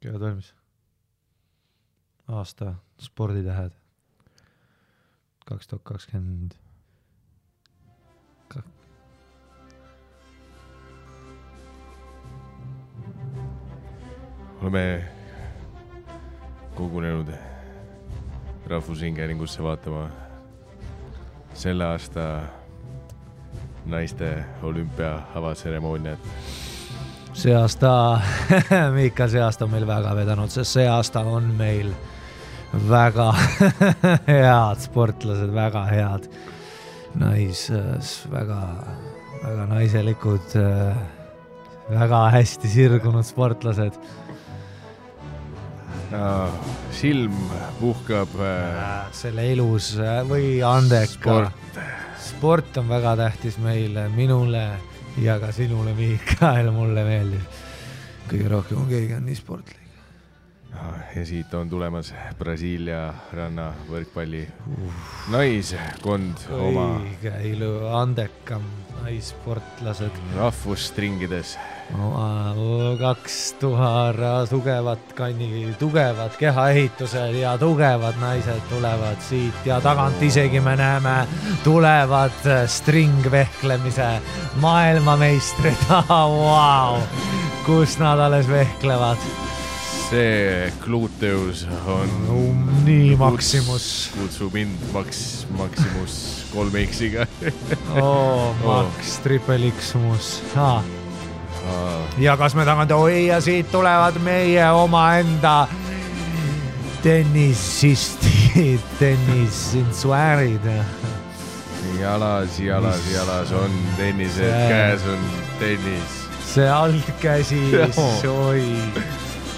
Kevad valmis. Aasta sporditähed 2020. Oleme kogunenud Rahvusringhäälingusse vaatama selle aasta naiste olümpia avatseremooniat. See aasta, Miikal, see aasta on meil väga vedanud, sest see aasta on meil väga head sportlased, väga head väga naiselikud, väga hästi sirgunud sportlased. Silm puhkab selle ilus või andeka. Sport on väga tähtis meile, minule ja ka sinule, Miikael, mulle meeldib. Kõige rohkem on keegi on nii sportlik. Ja siit on tulemas Brasiilia ranna võrkpalli naiskond oma õige ilu andekam naissportlased rahvusstringides. 2000 tugevad kehaehitused ja tugevad naised tulevad siit ja tagant isegi me näeme tulevad stringvehklemise maailmameistrid. Wow. Kus nad alles vehklevad? See gluteus on nii Maximus. Kutsu mind Maximus 3X-iga. Max, triple X-mus. Ja kas me tagant, ja siit tulevad meie omaenda tennisistid, tennisinsuäärid. Jalas on tennised, käes on tennis. See altkäsi, oi.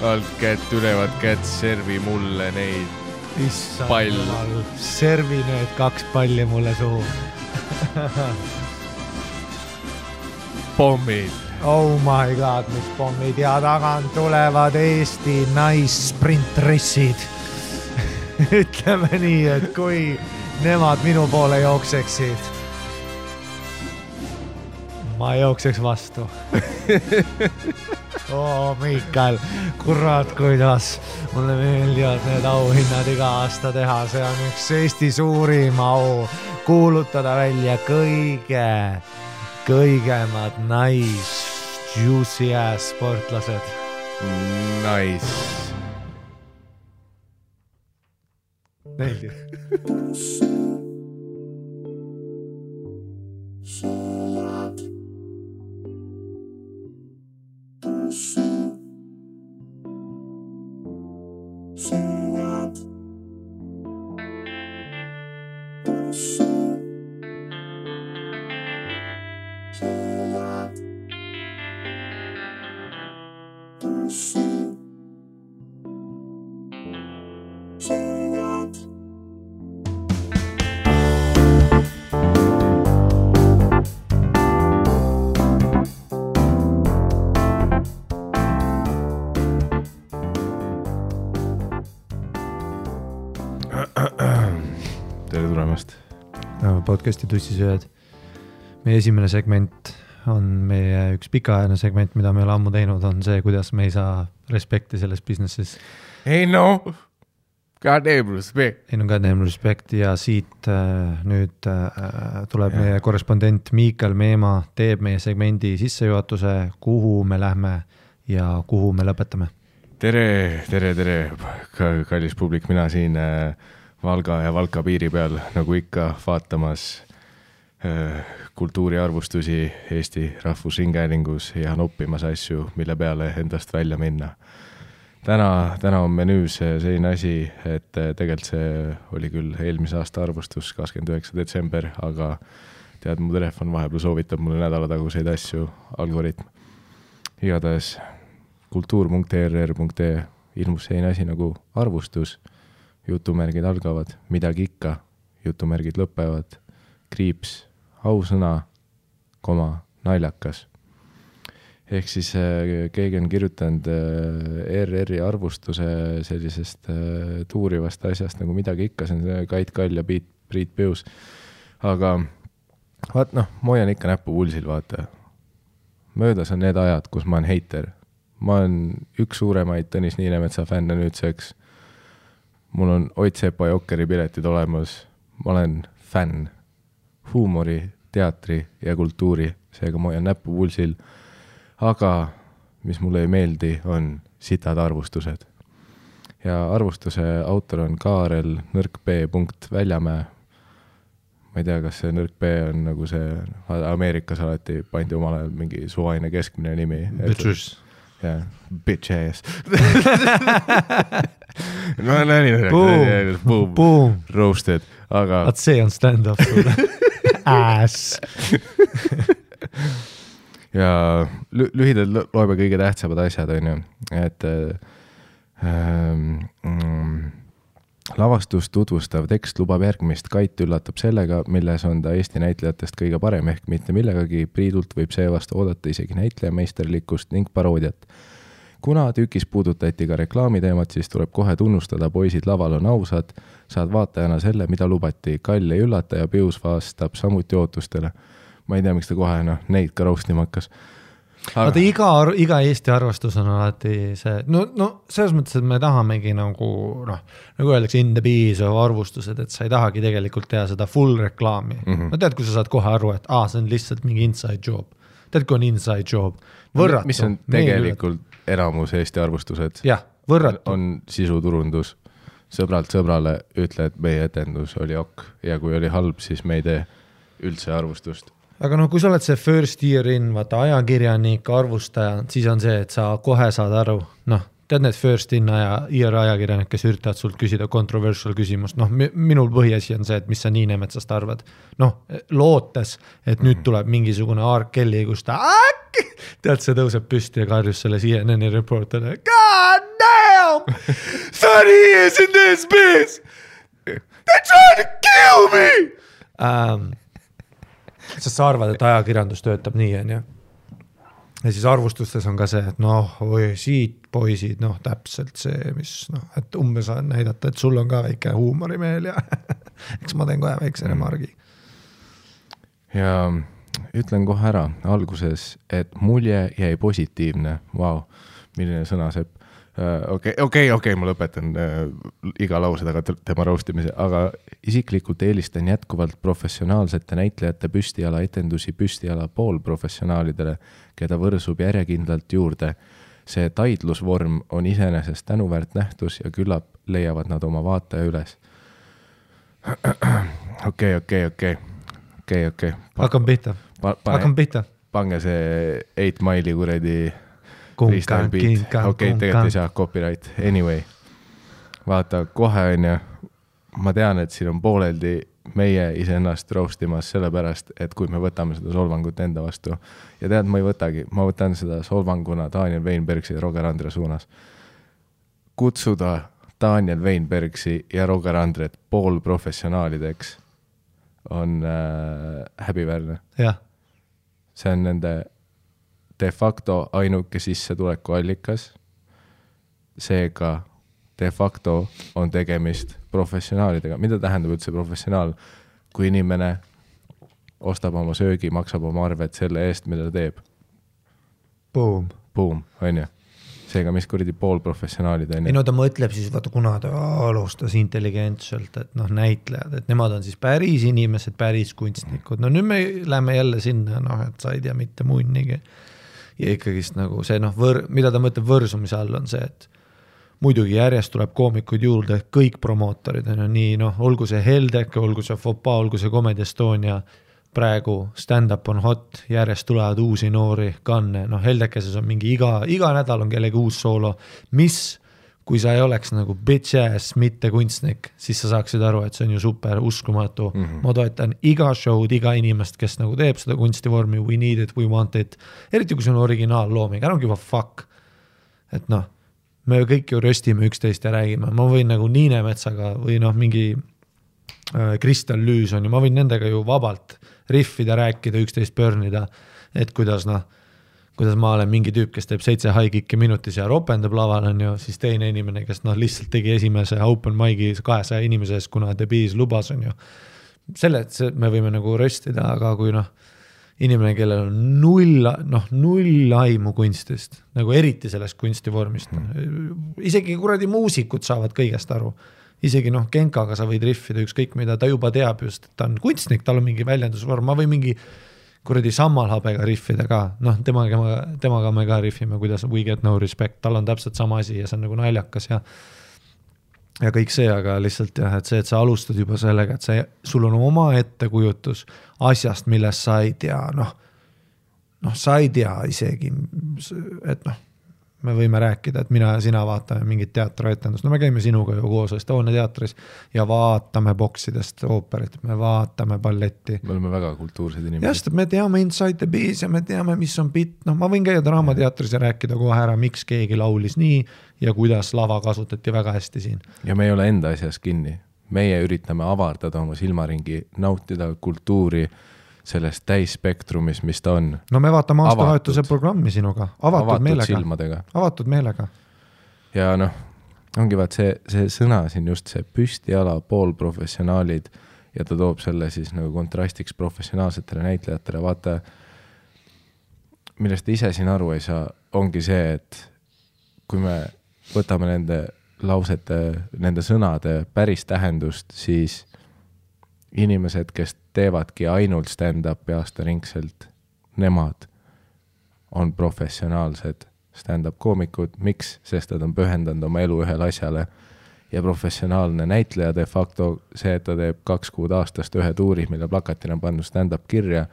Altkätt, ülevad kätt, servi mulle neid pall. Servi need 2 palli mulle suhu. Pommid. Oh my god, mis pommid ja tagant tulevad Eesti naissprintrissid. Ütleme nii, et kui nemad minu poole jookseksid, ma jookseks vastu. Miikael, kurat, kuidas mulle meeldivad need auhinnad iga aasta teha. See on üks Eesti suurim au kuulutada välja kõigemad juicy ass sportlased. Nice. Meeldib. Tere tulemast. Podcasti tussisööjad. Meie esimene segment on meie üks pikaajaline segment, mida me oleme ammu teinud, on see, kuidas me ei saa respekti selles businessis. Ei no, goddamn respect ja siit nüüd tuleb meie korrespondent Miikael Meemaa, teeb meie segmendi sissejuhatuse, kuhu me lähme ja kuhu me lõpetame. Tere, kallis publik, mina siin Valga ja Valka piiri peal, nagu ikka, vaatamas kultuuriarvustusi Eesti Rahvusringhäälingus ja noppimas asju, mille peale endast välja minna. Täna on menüüs selline asi, et tegelikult see oli küll eelmise aasta arvustus 29. detsember, aga tead, mu telefon vahepeal soovitab mulle nädalataguseid asju, algoritm. Igatahes kultuur.err.ee ilmus selline asi nagu arvustus, jutumärgid algavad, midagi ikka, jutumärgid lõpevad, kriips, ausõna, naljakas. Ehk siis keegi on kirjutanud RR-i arvustuse sellisest tuurivast asjast nagu midagi ikka, see on Kait Kall ja Priit Pius. Aga vaat ma hoian ikka näppu pulsil, vaata. Möödas on need ajad, kus ma olen heiter. ma olen üks suuremaid Tõnis Niinemetsa fänne nüüdseks. Mul on Ott Sepa Jokkeri piletid olemas. Ma olen fänn huumori, teatri ja kultuuri, seega ma hoian näppu pulsil. Aga mis mulle ei meeldi, on sitad arvustused. Ja arvustuse autor on Kaarel nõrk.Väljamäe. Ma ei tea, kas see nõrk B on nagu see Ameerikas alati pandi omal ajal mingi suvaline keskmine nimi. Bitches. Jah, bitch ass. No näin. Boom. Roasted. Aga... Vaat see on stand-up sulle. Ass. Ja lühidalt loeme kõige tähtsamad asjad, on ju. Et lavastust tutvustav tekst lubab järgmist. Kait üllatab sellega, milles on ta Eesti näitlejatest kõige parem ehk mitte millegagi. Priidult võib seevast oodata isegi näitleja meisterlikkust ning paroodiat. Kuna tükis puudutati ka reklaamiteemat, siis tuleb kohe tunnustada, poisid laval on ausad, saad vaatajana selle, mida lubati. Kall ei üllata ja Pius vastab samuti ootustele. Ma ei tea, miks ta kohe neid ka roostima hakkas. Aga iga Eesti arvastus on alati see, no selles mõttes, et me tahamegi nagu öeldakse in the bees arvustused, et sa ei tahagi tegelikult teha seda full reklaami. No tead, kui sa saad kohe aru, et see on lihtsalt mingi inside job. Tead, kui on inside job. Võrratu. Mis on tegelikult enamus Eesti arvustused? Jah, võrratu. On sisuturundus. Sõbralt sõbrale ütle, et meie etendus oli ok ja kui oli halb, siis me ei tee üldse arvustust. Aga kui sa oled see first year in, vaata ajakirjanik, arvustaja, siis on see, et sa kohe saad aru, tead need first in year ajakirjanik, kes üritavad sult küsida controversial küsimust, minul põhiasi on see, et mis sa Niinemetsast arvad. Lootes, et nüüd tuleb mingisugune R. Kelly, kus ta tead, see tõuseb püsti ja karjus selle CNN reporteri. God damn! 30 years in this biz! They're trying to kill me! Sest sa arvad, et ajakirjandus töötab nii, on ju. Ja siis arvustustes on ka see, et siit poisid, täpselt see, mis, et umbes näidata, et sul on ka väike huumorimeel ja eks ma teen kohe väikse remargi. Ja ütlen kohe ära alguses, et mulje jäi positiivne. Vau, milline sõna sepp. Okei, ma lõpetan iga lause taga tema roostimise, aga isiklikult eelistan jätkuvalt professionaalsete näitlejate püstiala etendusi püstiala poolprofessionaalidele, keda võrsub järjekindlalt juurde. See taidlusvorm on iseenesest tänuväärt nähtus ja küllap leiavad nad oma vaataja üles. Okei. Hakkam pihta. Pange see 8 Mile'i kuredi freestyle beat. Tegelikult ei saa copyright. Anyway, vaata, kohe on ja ma tean, et siin on pooleldi meie iseennast roastimas sellepärast, et kui me võtame seda solvangut enda vastu ja tead, ma ei võtagi, ma võtan seda solvanguna Daniel Weinbergsi ja Roger Andre suunas. Kutsuda Daniel Weinbergsi ja Roger Andret poolprofessionaalideks on häbiväärne. Jah. See on nende de facto ainuke sissetuleku allikas. Seega de facto on tegemist professionaalidega. Mida tähendab üldse professionaal? Kui inimene ostab oma söögi, maksab oma arved selle eest, mida ta teeb. Boom, on ju. Seega, mis kuridi poolprofessionaalid on ju. Ei, ta mõtleb siis, vaata, kuna ta alustas intelligentselt, et näitlejad, et nemad on siis päris inimesed, päris kunstnikud. Nüüd me läheme jälle sinna, et sa ei tea mitte munnigi. Ja ikkagist nagu see, mida ta mõtleb võrsumise all on see, et muidugi järjest tuleb koomikud juurde, kõik promootorid on nii, olgu see Heldek, olgu see Fopa, olgu see Comedy Estonia, praegu stand-up on hot, järjest tulevad uusi noori kanne, Heldekeses on mingi iga nädal on kellegi uus soolo, mis, kui sa ei oleks nagu bitch ass, mitte kunstnik, siis sa saaksid aru, et see on ju super uskumatu. Ma toetan iga show'd, iga inimest, kes nagu teeb seda kunstivormi, we need it, we want it, eriti kui see on originaallooming, I don't give a fuck, et me kõik ju röstime üksteist ja räägime, ma võin nagu Niinemetsaga või mingi Kristel Lüüs on ju, ma võin nendega ju vabalt riffida, rääkida, üksteist pörnida, et kuidas ma olen mingi tüüp, kes teeb 7 high-kicki minutis ja ropendab laval on ju, siis teine inimene, kes lihtsalt tegi esimese open mic'i 200 inimeses, kuna The Bees lubas on ju. Me võime nagu röstida, aga kui inimene, kellel on null aimu kunstist, nagu eriti sellest kunstivormist. Isegi kuradi muusikud saavad kõigest aru. Isegi Genkaga sa võid riffida ükskõik mida, ta juba teab just, et ta on kunstnik, tal on mingi väljendusvorm, ma või mingi kuradi sammalhabega riffida ka, temaga me ka riffime, kuidas We Get No Respect, tal on täpselt sama asi ja see on nagu naljakas ja kõik see, aga lihtsalt jah, et see, et sa alustad juba sellega, et sul on oma ettekujutus asjast, millest sa ei tea, sa ei tea isegi, et me võime rääkida, et mina ja sina vaatame mingit teatrietendust, me käime sinuga ju koos Estonia teatris ja vaatame boksidest ooperit, me vaatame balletti. Me oleme väga kultuursed inimesed. Just, me teame Inside the Bees ja me teame, mis on bitt, ma võin käia Draamateatris ja rääkida kohe ära, miks keegi laulis nii ja kuidas lava kasutati väga hästi siin. Ja me ei ole enda asjas kinni. Meie üritame avardada oma silmaringi, nautida kultuuri sellest täisspektrumis, mis ta on. No me vaatame aastavahetuse programmi sinuga. Avatud meelega. Silmadega. Avatud meelega. Ja ongi vaat see sõna siin just see püstiala poolprofessionaalid ja ta toob selle siis nagu kontrastiks professionaalsetele näitlejatele. Vaata, millest ise siin aru ei saa, ongi see, et kui me võtame nende lausete, nende sõnade päris tähendust, siis inimesed, kes teevadki ainult stand-upi aastaringselt, nemad on professionaalsed stand-up koomikud. Miks? Sest nad on pühendanud oma elu ühele asjale ja professionaalne näitleja de facto see, et ta teeb 2 kuud aastast ühe tuuri, mille plakatil on pannud stand-up kirja.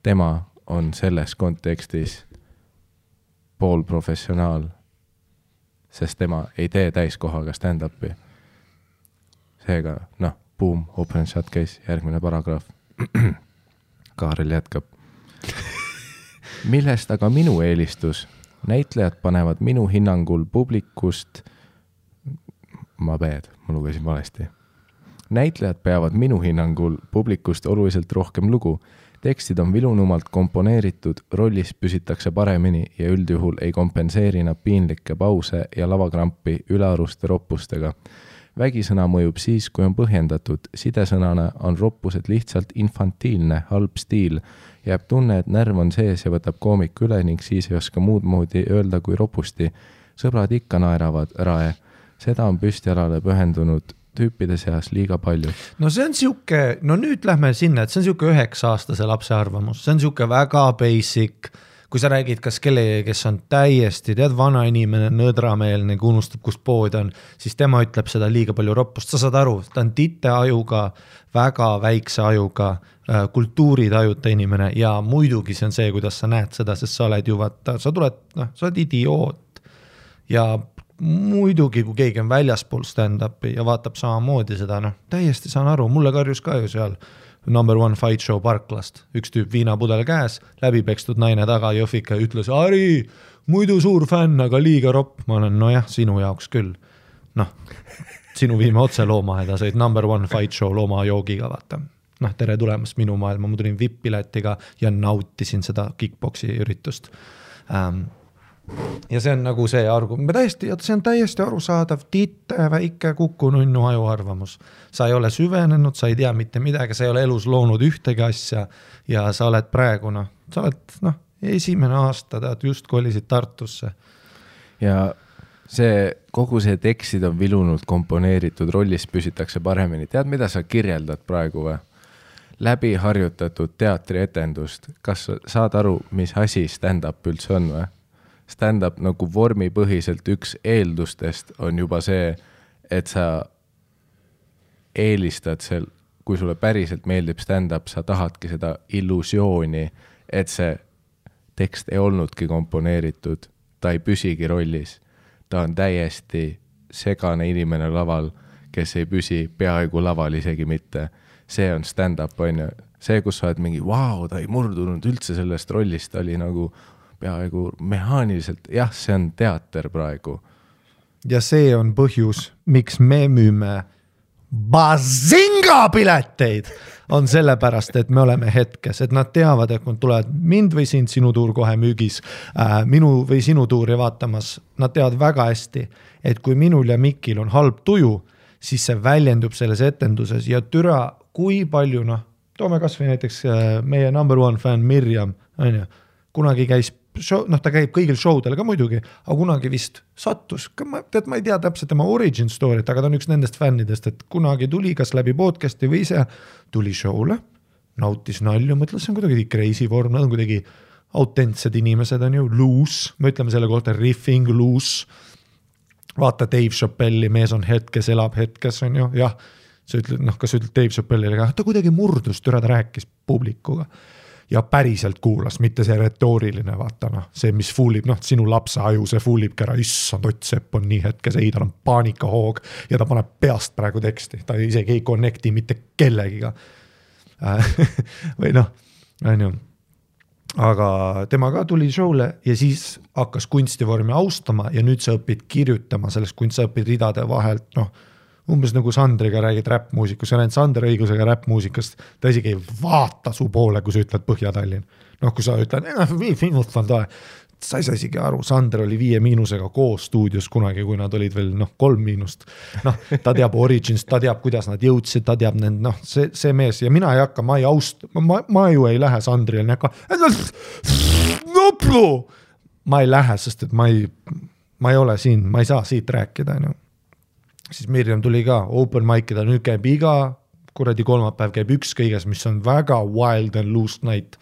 Tema on selles kontekstis poolprofessionaal, sest tema ei tee täiskohaga stand-upi. Seega, boom, open shot case, järgmine paragraaf. Kaarel jätkab. Millest aga minu eelistus? Näitlejad panevad minu hinnangul publikust... Ma lugesin valesti. Näitlejad peavad minu hinnangul publikust oluliselt rohkem lugu. Tekstid on vilunumalt komponeeritud, rollis püsitakse paremini ja üldjuhul ei kompenseeri nad piinlikke pause ja lavakrampi ülearuste roppustega. Vägisõna mõjub siis, kui on põhjendatud. Sidesõnana on roppused lihtsalt infantiilne, halb stiil. Jääb tunne, et närv on sees ja võtab koomik üle ning siis ei oska muud moodi öelda kui ropusti. Sõbrad ikka naeravad rae. Seda on püstialale pühendunud tüüpide seas liiga palju. No see on siuke, nüüd lähme sinna, et see on siuke 9-aastase lapse arvamus. See on siuke väga basic. Kui sa räägid kas kellegi, kes on täiesti, vana inimene, nõdrameelne, kui unustab, kus pood on, siis tema ütleb seda liiga palju roppust. Sa saad aru, ta on tite ajuga, väga väikse ajuga, kultuuritajuta inimene ja muidugi see on see, kuidas sa näed seda, sest sa oled ju vaata, sa oled idioot. Ja muidugi, kui keegi on väljaspool stand-upi ja vaatab samamoodi seda, täiesti saan aru, mulle karjus ka ju seal Number One Fight Show Parklast. Üks tüüp viinapudel käes, läbipekstud naine taga Jõhvika ütles, Ari, muidu suur fänn, aga liiga ropp. Ma olen, sinu jaoks küll. Sinu viime otse loomaheda, said Number One Fight Show looma joogiga, vaata. Tere tulemast minu maailma, ma tulin VIP-piletiga ja nautisin seda kickboksi üritust. Ja see on nagu see see on täiesti arusaadav, titte, väike kukununnu ajuarvamus. Sa ei ole süvenenud, sa ei tea mitte midagi, sa ei ole elus loonud ühtegi asja ja sa oled praegu, sa oled esimene aasta, just kolisid Tartusse. Ja kogu see tekstid on vilunud, komponeeritud, rollis püsitakse paremini. Tead, mida sa kirjeldad praegu või? Läbi harjutatud teatrietendust. Kas saad aru, mis asi stand-up üldse on või? Stand-up nagu vormipõhiselt üks eeldustest on juba see, et sa eelistad kui sulle päriselt meeldib stand-up, sa tahadki seda illusiooni, et see tekst ei olnudki komponeeritud, ta ei püsigi rollis. Ta on täiesti segane inimene laval, kes ei püsi peaaegu laval isegi mitte. See on stand-up, on ju. See, kus sa oled mingi, ta ei murdunud üldse sellest rollist, ta oli nagu peaaegu mehaaniliselt, see on teater praegu. Ja see on põhjus, miks me müüme Bazinga pileteid, on sellepärast, et me oleme hetkes, et nad teavad, et kui tulevad mind või sind, sinu tuur kohe müügis, minu või sinu tuuri vaatamas, nad teavad väga hästi, et kui minul ja Mikil on halb tuju, siis see väljendub selles etenduses ja türa, kui palju toome kas või näiteks meie number one fan Mirjam, on ju, kunagi käis show, ta käib kõigil showdel ka muidugi, aga kunagi vist sattus, ma ei tea täpselt tema origin story't, aga ta on üks nendest fännidest, et kunagi tuli kas läbi podcast'i või ise tuli show'le, nautis nalju, mõtles, see on kuidagi crazy vorm, nad on kuidagi autentsed inimesed, on ju, loose, me ütleme selle kohta riffing, loose, vaata Dave Chappelli, mees on hetkes, elab hetkes, on ju, jah, sa ütled, kas sa ütled Dave Chappellile, aga ta kuidagi murdus, ta rääkis publikuga ja päriselt kuulas, mitte see retooriline, vaata see, mis fuulib, sinu lapse aju, see fuulib kära, issand, Ott Sepp on nii hetkes, ei, tal on paanikahoog ja ta paneb peast praegu teksti, ta isegi ei connecti mitte kellegiga. Või on ju. Aga tema ka tuli show'le ja siis hakkas kunstivormi austama ja nüüd sa õpid kirjutama sellest, kui sa õpid ridade vahelt, umbes nagu Sandriga räägid räppmuusikust, sa näed Sander õigusega räppmuusikast, ta isegi ei vaata su poole, kui sa ütled Põhja-Tallinn. Kui sa ütled, sa ei saa isegi aru, Sander oli 5 – koos stuudios kunagi, kui nad olid veel 3 –. Ta teab origins, ta teab, kuidas nad jõudsid, ta teab see mees ja mina ei hakka, ma ju ei lähe Sandrile, ma ei lähe, sest et ma ei ole siin, ma ei saa siit rääkida, siis Mirjam tuli ka open mic'ida, nüüd käib iga kuradi kolmapäev, käib üks kõiges, mis on väga wild and loose night.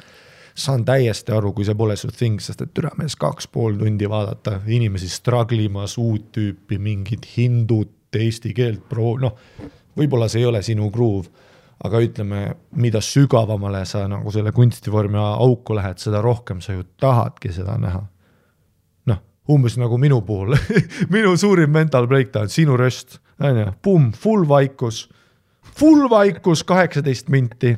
Saan täiesti aru, kui see pole su thing, sest et türamees 2,5 tundi vaadata, inimesi struggle'imas, uut tüüpi, mingid hindud, eesti keelt, võib-olla see ei ole sinu groove, aga ütleme, mida sügavamale sa nagu selle kunstivormi auku lähed, seda rohkem sa ju tahadki seda näha. Umbes nagu minu puhul, minu suurim mental breakdown, sinu röst, pum, full vaikus, 18 minti,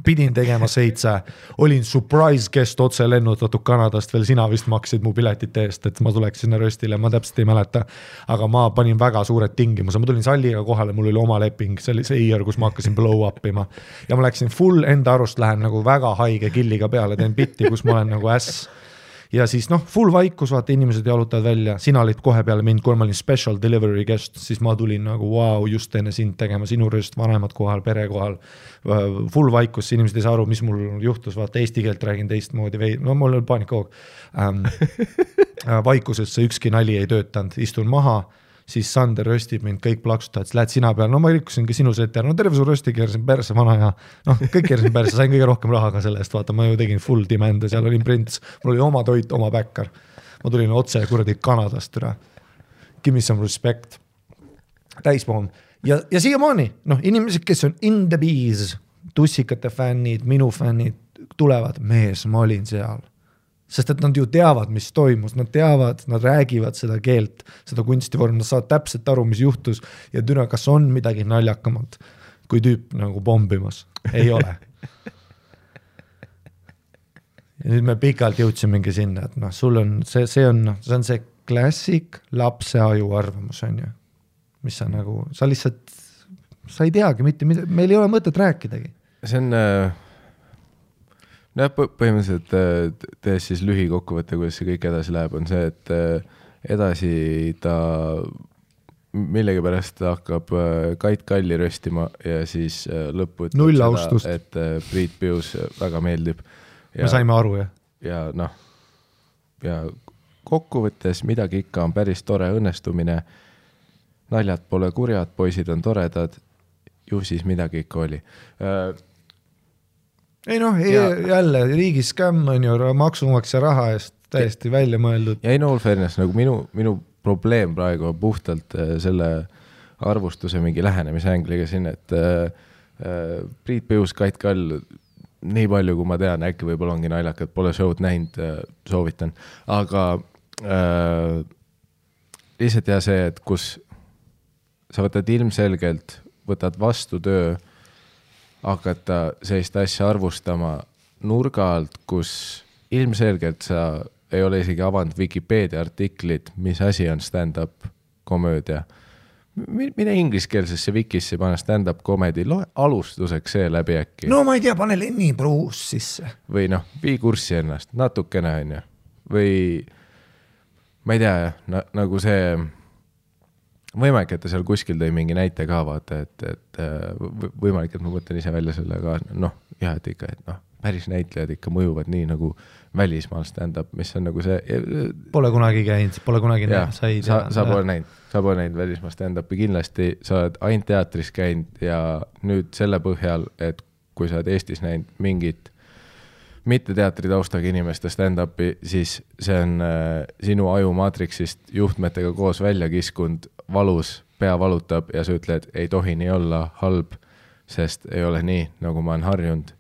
pidin tegema 7, olin surprise guest otse lennutatud Kanadast, veel sina vist maksid mu piletite eest, et ma tuleks sinna röstile, ma täpselt ei mäleta, aga ma panin väga suured tingimuse, ma tulin salliga kohale, mul oli oma leping, see oli see year, kus ma hakkasin blow up ima ja ma läksin full enda arust, lähen nagu väga haige killiga peale, teen bitti, kus ma olen nagu äss. Ja siis full vaikus, vaata, inimesed jalutavad välja, sina olid kohe peale mind, kui ma olin special delivery guest, siis ma tulin nagu wow, just enne sind tegema, sinu rööst, vanemad kohal, pere kohal, full vaikus, inimesed ei saa aru, mis mul juhtus, vaata, eesti keelt räägin teistmoodi, mul oli paanikahoog. Vaikusesse ükski nali ei töötanud, istun maha, siis Sander röstib mind, kõik plaksutavad, siis lähed sina peale, ma rikkusingi sinu seti ära, terve su rösti keerasin perse vana ja kõik keerasin perse, sain kõige rohkem raha ka selle eest, vaata, ma ju tegin full demand ja seal olin prints, mul oli oma toit, oma bäkkar, ma tulin otse kuradi Kanadast üle, give me some respect, täispoom ja siiamaani, inimesed, kes on in the bees, tussikate fännid, minu fännid, tulevad, mees, ma olin seal. Sest et nad ju teavad, mis toimus, nad teavad, nad räägivad seda keelt, seda kunstivorm, nad saavad täpselt aru, mis juhtus ja türa, kas on midagi naljakamalt, kui tüüp nagu bombimas. Ei ole. Ja nüüd me pikalt jõudsimegi sinna, et sul on, see on see klassik lapse aju arvamus, on ju, mis sa nagu, sa lihtsalt, sa ei teagi mitte, meil ei ole mõtet rääkidagi. See on... põhimõtteliselt tees siis lühikokkuvõte, kuidas see kõik edasi läheb, on see, et edasi ta millegipärast hakkab Kait Kalli röstima ja siis lõppu ütleb seda, et Priit Pius väga meeldib. Me saime aru, jah? Ja ja kokkuvõttes midagi ikka on päris tore õnnestumine, naljad pole kurjad, poisid on toredad, ju siis midagi ikka oli. Ei jälle riigi skämm on ju maksumaksja raha eest täiesti välja mõeldud. Ja all fairness, nagu minu probleem praegu on puhtalt selle arvustuse mingi lähenemise ängliga siin, et Priit Pius, Kait Kall, nii palju kui ma tean, äkki võib-olla ongi naljakad, pole show'd näinud, soovitan. Aga lihtsalt ja see, et kus sa võtad ilmselgelt, võtad vastu töö, hakata sellist asja arvustama nurga alt, kus ilmselgelt sa ei ole isegi avanud Wikipedia artiklit, mis asi on stand-up komöödia. Mine ingliskeelsesse wikisse pane stand-up comedy, loe alustuseks see läbi äkki. No ma ei tea, pane Lenny Bruce sisse. Või vii kurssi ennast, natukene on ju. Või ma ei tea, nagu see võimalik, et ta seal kuskil tõi mingi näite ka, vaata, et võimalik, et ma mõtlen ise välja selle ka, noh, jah, et ikka, et noh, päris näitlejad ikka mõjuvad nii nagu välismaal stand-up, mis on nagu see... Pole kunagi käinud, pole kunagi näinud. Sa pole näinud välismaal stand-upi, kindlasti sa oled ainult teatris käinud ja nüüd selle põhjal, et kui sa oled Eestis näinud mingit mitte teatri taustaga inimeste stand-upi, siis see on sinu aju maatriksist juhtmetega koos välja kiskund, valus, pea valutab ja sa ütled, ei tohi nii olla halb, sest ei ole nii, nagu ma olen harjunud.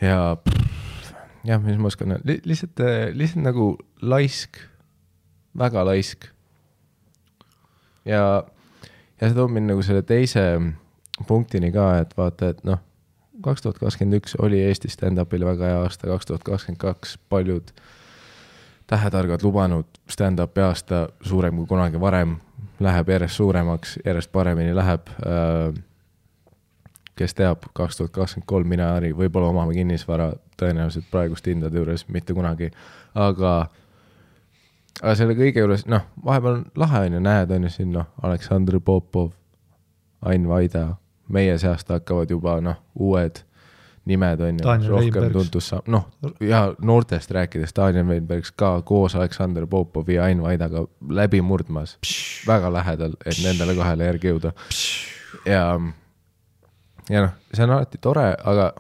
Ja mis ma oskan, lihtsalt nagu laisk, väga laisk. Ja see toob mind nagu selle teise punktini ka, et vaata, et noh, 2021 oli Eesti stand-upile väga hea aasta, 2022 paljud tähetargad lubanud stand-upi aasta suurem kui kunagi varem, läheb järjest suuremaks, järjest paremini läheb. Kes teab, 2023 mina Ari, võib-olla omame kinnisvara tõenäoliselt praegust hindade juures, mitte kunagi, aga selle kõige juures, noh, vahepeal on lahe on ju, näed on ju siin, noh, Aleksandr Popov, Ain Vaida, meie seast hakkavad juba, noh, uued nimed on ju, rohkem tuntus saab, noh, ja noortest rääkides Daniel Weinbergs ka koos Aleksandr Popovi ja Ain Vaidaga läbi murdmas, väga lähedal, et nendele kahele järgi jõuda. Ja noh, see on alati tore, aga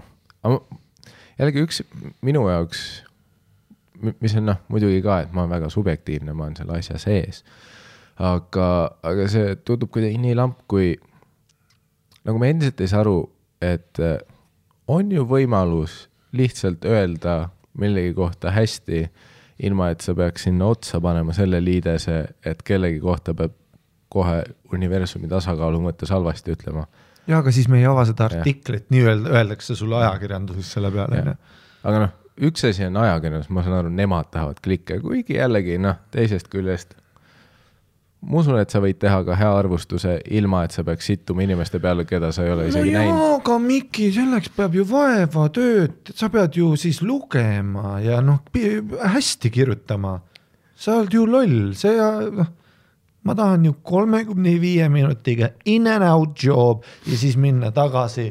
jällegi üks minu jaoks, mis on noh, muidugi ka, et ma olen väga subjektiivne, ma olen selle asja sees, aga see tundub kuidagi nii lamp, kui nagu me endiselt ei saa aru, et on ju võimalus lihtsalt öelda millegi kohta hästi, ilma et sa peaks sinna otsa panema selle liidese, et kellegi kohta peab kohe universumi tasakaalu mõttes halvasti ütlema. Ja, aga siis me ei ava seda artiklit, nii öeldakse sulle ajakirjanduses selle peale. Aga noh, üks asi on ajakirjandus, ma saan aru, nemad tahavad klikke, kuigi jällegi, noh, teisest küljest. Ma usun, et sa võid teha ka hea arvustuse, ilma et sa peaks sittuma inimeste peale, keda sa ei ole isegi näinud. No aga Miki, selleks peab ju vaeva tööd, sa pead ju siis lugema ja noh, hästi kirjutama. Sa oled ju loll, ma tahan ju 35 minutiga in and out job ja siis minna tagasi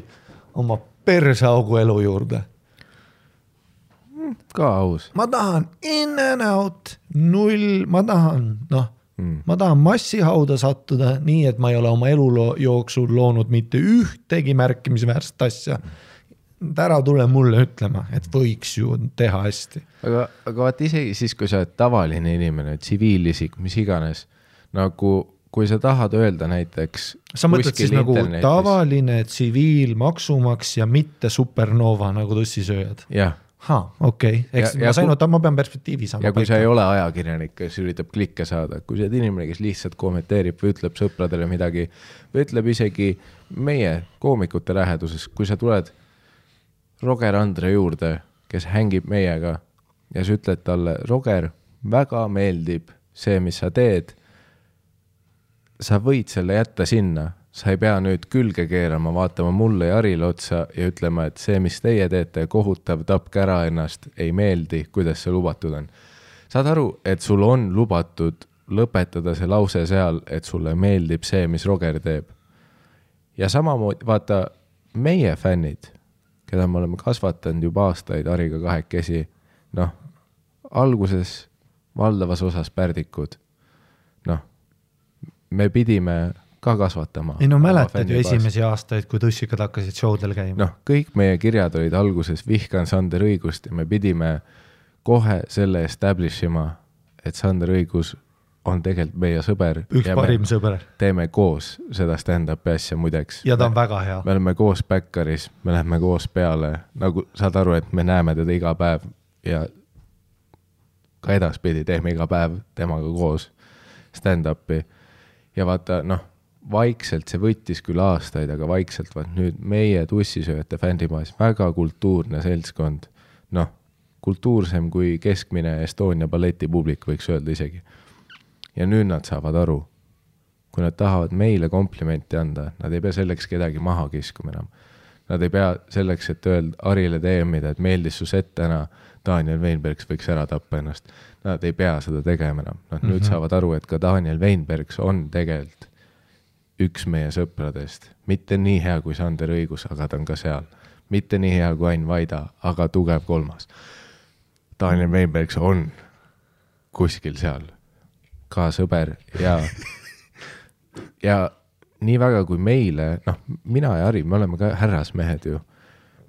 oma persaugu elu juurde. Ka aus. Ma tahan in and out, null, ma tahan massihauda sattuda nii, et ma ei ole oma elu jooksul loonud mitte ühtegi märkimisväärset asja. Ära tule mulle ütlema, et võiks ju teha hästi. Aga vaat isegi siis, kui sa oled tavaline inimene, tsiviilisik, mis iganes, nagu kui sa tahad öelda näiteks sa mõtled siis nagu tavaline tsiviil maksumaks ja mitte supernova nagu tussisööjad? Jah. Okei. Ma pean perspektiivi saama. Ja kui sa ei ole ajakirjanik, kes üritab klikke saada, kui sa oled inimene, kes lihtsalt kommenteerib või ütleb sõpradele midagi, või ütleb isegi meie koomikute läheduses, kui sa tuled Roger Andre juurde, kes hängib meiega ja sa ütled talle, Roger, väga meeldib see, mis sa teed, sa võid selle jätta sinna, sa ei pea nüüd külge keerama, vaatama mulle ja Arile otsa ja ütlema, et see, mis teie teete, kohutav, tapke ära ennast, ei meeldi, kuidas see lubatud on. Saad aru, et sul on lubatud lõpetada see lause seal, et sulle meeldib see, mis Roger teeb. Ja samamoodi, vaata, meie fännid, keda me oleme kasvatanud juba aastaid Ariga kahekesi, noh, alguses valdavas osas pärdikud, noh, me pidime ka kasvatama. Ei no mäletad ju esimesi aastaid, kui tussikad hakkasid showdel käima. Noh, kõik meie kirjad olid alguses vihkan Sander Õigust ja me pidime kohe selle establishima, et Sander Õigus on tegelikult meie sõber. Üks parim sõber. Teeme koos seda stand-upi asja muideks. Ja ta on väga hea. Me oleme koos Backeris, me läheme koos peale, nagu saad aru, et me näeme teda iga päev ja ka edaspidi teeme iga päev temaga koos stand-upi. Ja vaata, noh, vaikselt see võttis küll aastaid, aga vaikselt vaat nüüd meie tussisööjate fändimaas väga kultuurne seltskond, noh, kultuursem kui keskmine Estonia balletipublik võiks öelda isegi. Ja nüüd nad saavad aru, kui nad tahavad meile komplimenti anda, nad ei pea selleks kedagi maha kiskuma enam. Nad ei pea selleks, et öelda Arile teemida, et meeldis su set täna, Daniel Weinbergs võiks ära tappa ennast. Nad ei pea seda tegema enam. Nad nüüd saavad aru, et ka Daniel Weinbergs on tegelikult üks meie sõpradest, mitte nii hea kui Sander Õigus, aga ta on ka seal. Mitte nii hea kui Ain Vaida, aga tugev kolmas. Daniel Weinbergs on kuskil seal ka sõber ja nii väga kui meile, noh, mina ja Harri, me oleme ka härrasmehed ju.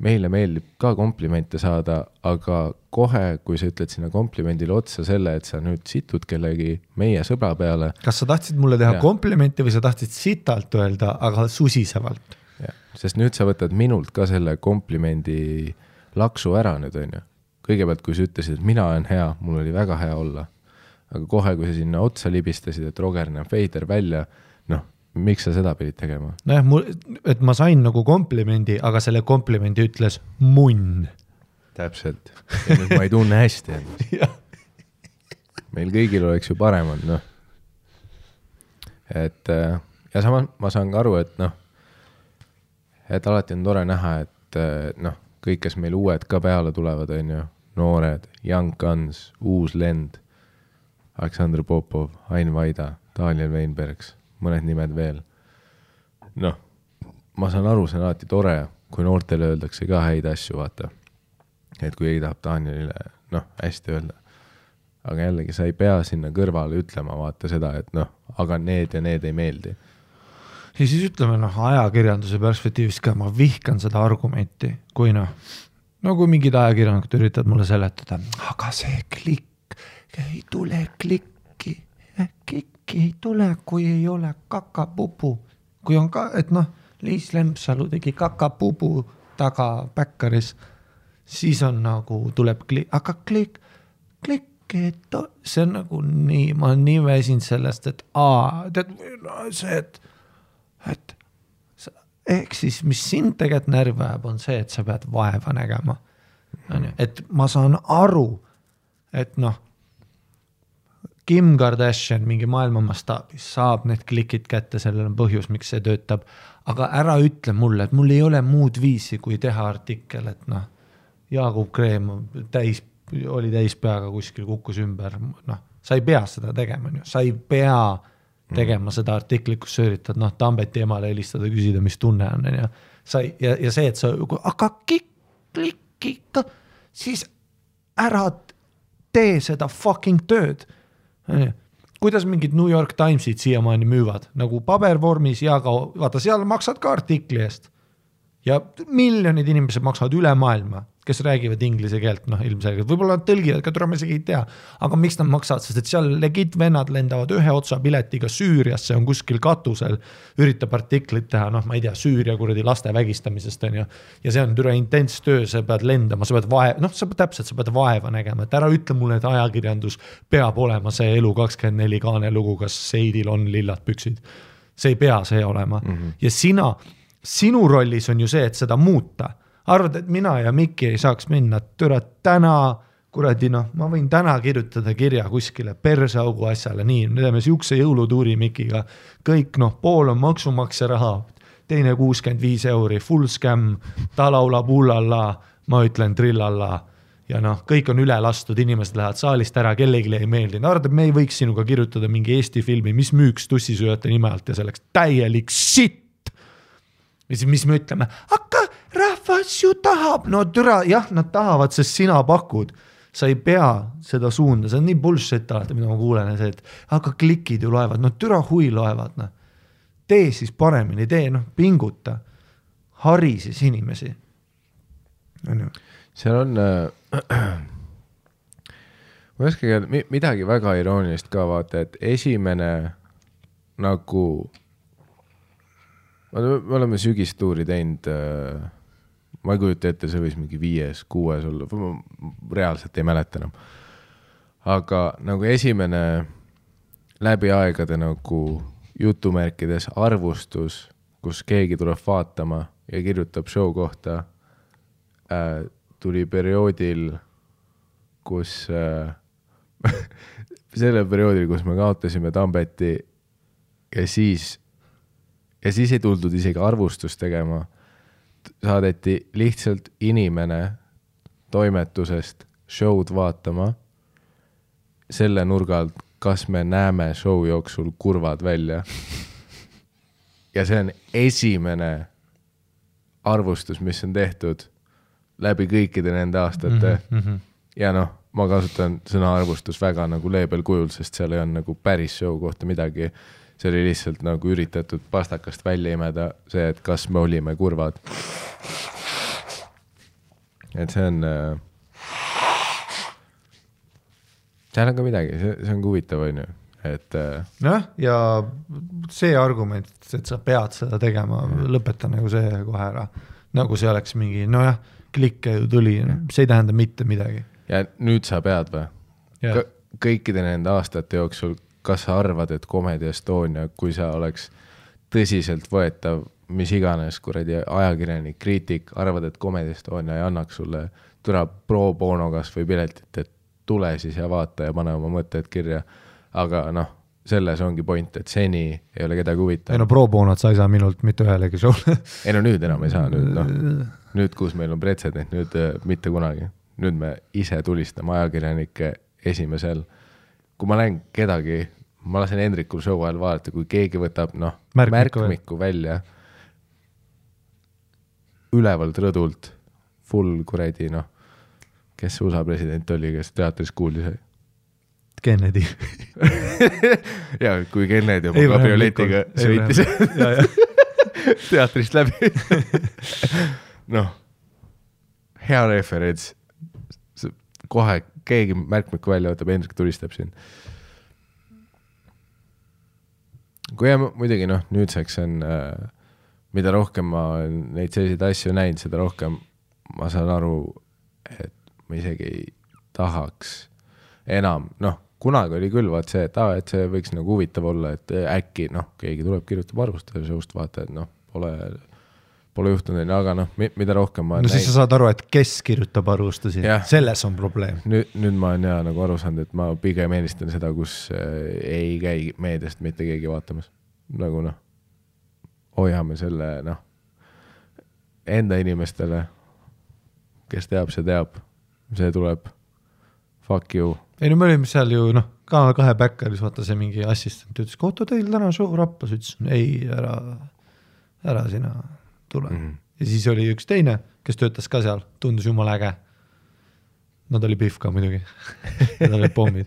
Meile meeldib ka komplimente saada, aga kohe, kui sa ütled sinna komplimendile otsa selle, et sa nüüd situd kellegi meie sõbra peale. Kas sa tahtsid mulle teha komplimenti või sa tahtsid sitalt öelda, aga susisevalt? Ja, sest nüüd sa võtad minult ka selle komplimendi laksu ära nüüd, on ju. Kõigepealt, kui sa ütlesid, et mina olen hea, mul oli väga hea olla. Aga kohe, kui sa sinna otsa libistasid, et Roger näeb veider välja, noh, miks sa seda pidid tegema? Nojah, et ma sain nagu komplimendi, aga selle komplimendi ütles munn. Täpselt. Ja nüüd ma ei tunne hästi. Meil kõigil oleks ju paremad, noh. Et, ja samas ma saan ka aru, et noh, et alati on tore näha, et noh, kõik, kes meil uued ka peale tulevad, on ju, noored, Young Guns, uus lend, Aleksandr Popov, Ain Vaida, Daniel Weinbergs, mõned nimed veel. Noh, ma saan aru, see on alati tore, kui noortele öeldakse ka häid asju, vaata. Et kui ei tahab Danielile, noh, hästi öelda. Aga jällegi, sa ei pea sinna kõrvale ütlema, vaata seda, et noh, aga need ja need ei meeldi. Ja siis ütleme, noh, ajakirjanduse perspektiivist ka, ma vihkan seda argumenti, kui noh, no kui mingid ajakirjanikud üritavad mulle seletada, aga see klikk, ei tule klikki ei tule, kui ei ole kakapupu. Kui on ka, et noh, Liis Lempsalu tegi kakapupu taga Päkkaris, siis on nagu, tuleb klikk, aga klikk, see on nagu nii, ma olen nii väsinud sellest, et see, et ehk siis, mis sind tegelikult närvi ajab, on see, et sa pead vaeva nägema. Et ma saan aru, et noh, Kim Kardashian mingi maailma mastaabis saab need klikid kätte, sellel on põhjus, miks see töötab, aga ära ütle mulle, et mul ei ole muud viisi, kui teha artikkel, et noh, Jaagup Kreem oli täis peaga kuskil, kukkus ümber, noh, sa ei pea seda tegema, sa ei pea tegema seda artiklit, kus sa üritad, noh, Tambeti emale helistada, küsida, mis tunne on, ja see, et sa, aga klikk, siis ära tee seda fucking tööd. Kuidas mingid New York Timesid siiamaani müüvad, nagu pabervormis ja ka, vaata, seal maksad ka artikli eest. Ja miljonid inimesed maksavad üle maailma, kes räägivad inglise keelt, noh, ilmselgelt. Võib-olla nad tõlgivad, ka tuleb isegi ei tea. Aga miks nad maksavad, sest et seal legit vennad lendavad ühe otsa piletiga Süüriasse, on kuskil katusel, üritab artiklit teha, noh, ma ei tea, Süüria kuradi laste vägistamisest on ju. Ja see on türa intens töö, sa pead lendama, sa pead vaeva nägema, et ära ütle mulle, et ajakirjandus peab olema see elu 24 kaane lugu, kas Seidil on lillad püksid. See ei pea see olema. Ja sinu rollis on ju see, et seda muuta. Arvad, et mina ja Mikki ei saaks minna, türa täna, kuradi noh, ma võin täna kirjutada kirja kuskile persaugu asjale, nii, me teeme siukse jõulutuuri Mikiga, kõik noh, pool on maksumaksja raha, teine 65 €, full scam, ta laulab ullalla, ma ütlen trillalla ja noh, kõik on üle lastud, inimesed lähevad saalist ära, kellegi ei meeldi. Arvad, et me ei võiks sinuga kirjutada mingi Eesti filmi, mis müüks tussisööjate nime alt ja selleks täielik sitt. Ja siis mis me ütleme, aga rahvas ju tahab, no türa, jah, nad tahavad, sest sina pakud, sa ei pea seda suunda, see on nii bullshit alati, mida ma kuulen, see, et aga klikid ju loevad, no türa hui loevad, noh. Tee siis paremini, pinguta, hari siis inimesi. Seal on, ma ei oska midagi väga iroonilist ka vaata, et esimene nagu me oleme sügistuuri teinud, ma ei kujuta ette, see võis mingi 5, 6 olla, ma reaalselt ei mäleta enam. Aga nagu esimene läbi aegade nagu jutumärkides arvustus, kus keegi tuleb vaatama ja kirjutab show kohta, tuli perioodil, kus selle perioodil, kus me kaotasime Tambeti ja siis ei tuldud isegi arvustust tegema. Saadeti lihtsalt inimene toimetusest show'd vaatama selle nurga alt, kas me näeme show jooksul kurvad välja. ja see on esimene arvustus, mis on tehtud läbi kõikide nende aastate ja noh, ma kasutan sõna arvustus väga nagu leebel kujul, sest seal ei on nagu päris show kohta midagi, see oli lihtsalt nagu üritatud pastakast välja imeda see, et kas me olime kurvad. Et see on seal on ka midagi, see on huvitav, on ju, et ja see argument, et sa pead seda tegema, lõpeta nagu see kohe ära, nagu see oleks mingi, nojah, klikke ju tuli, see ei tähenda mitte midagi. Ja nüüd sa pead või? Kõikide nende aastate jooksul, kas sa arvad, et Comedy Estonia, kui sa oleks tõsiselt võetav, mis iganes kuradi ajakirjanik, kriitik, arvad, et Comedy Estonia ei annaks sulle türa pro bono kas või piletit, et tule siis ja vaata ja pane oma mõtted kirja. Aga noh, selles ongi point, et seni ei ole kedagi huvitav. Ei no pro bonot sa ei saa minult mitte ühelegi showle. Ei no nüüd enam ei saa, nüüd kus meil on pretsedent, nüüd mitte kunagi. Nüüd me ise tulistame ajakirjanike esimesel. Kui ma näen kedagi, ma lasen Hendrikul show ajal vaadata, kui keegi võtab märkmiku välja ülevalt rõdult, full kuredi, kes USA president oli, kes teatris kuulis? Kennedy. ja kui Kennedy oma kabrioletiga sõitis teatrist läbi. Hea referents. Kohe keegi märkmiku välja võtab, Hendrik tulistab siin. Kui muidugi nüüdseks on, mida rohkem ma neid selliseid asju näinud, seda rohkem ma saan aru, et ma isegi ei tahaks enam, kunagi oli küll vaat see, et see võiks nagu huvitav olla, et äkki keegi tuleb kirjutab arvustada seust vaata, et pole juhtunud, aga mida rohkem ma siis sa saad aru, et kes kirjutab arvustusi, selles on probleem. Nüüd ma olen nagu aru saanud, et ma pigem eelistan seda, kus ei käi meediast mitte keegi vaatamas. Nagu hoiame selle enda inimestele, kes teab, see tuleb fuck you. Ei me olime seal ju Kanal 2 backeris, vaata see mingi assistent ütles, kohta teil täna show rappas, ütles, ei, ära sina tule. Ja siis oli üks teine, kes töötas ka seal, tundus jumala äge. Nad oli pihv ka muidugi. Nad olid pommid.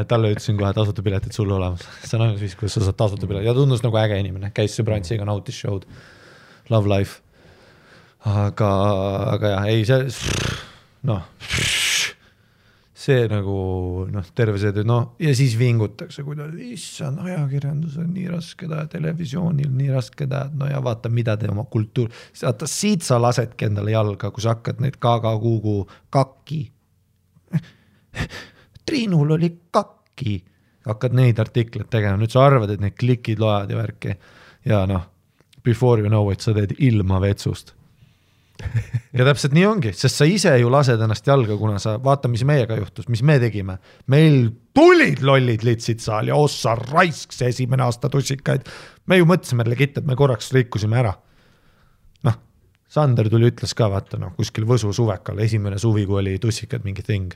Talle ütlesin kohe tasuta piletit sulle olemas. See on ainult viis, kuidas sa saad tasuta piletit. Ja tundus nagu äge inimene. Käis sõbrantsiga, nautis show'd. Love life. Aga jah, ei see see nagu terve see töö, ja siis vingutakse, kuidas issand, ajakirjandus on nii raske teha, televisioonil nii raske teha, ja vaata, mida te oma kultuur, vaata, siit sa lasedki endale jalga, kui sa hakkad neid Kuugu kakki. Triinul oli kakki. Hakkad neid artikleid tegema, nüüd sa arvad, et need klikid loed ja värki. Ja before you know it, sa teed ilma vetsust. Ja täpselt nii ongi, sest sa ise ju lased ennast jalga, kuna sa vaata, mis meiega juhtus, mis me tegime. Meil tulid lollid litsid saal ja ossa raisk see esimene aasta tussikaid. Me ju mõtlesime legit, et me korraks rikkusime ära. Sander tuli ütles ka, vaata, kuskil Võsu suvekal, esimene suvi, kui oli tussikad mingi thing.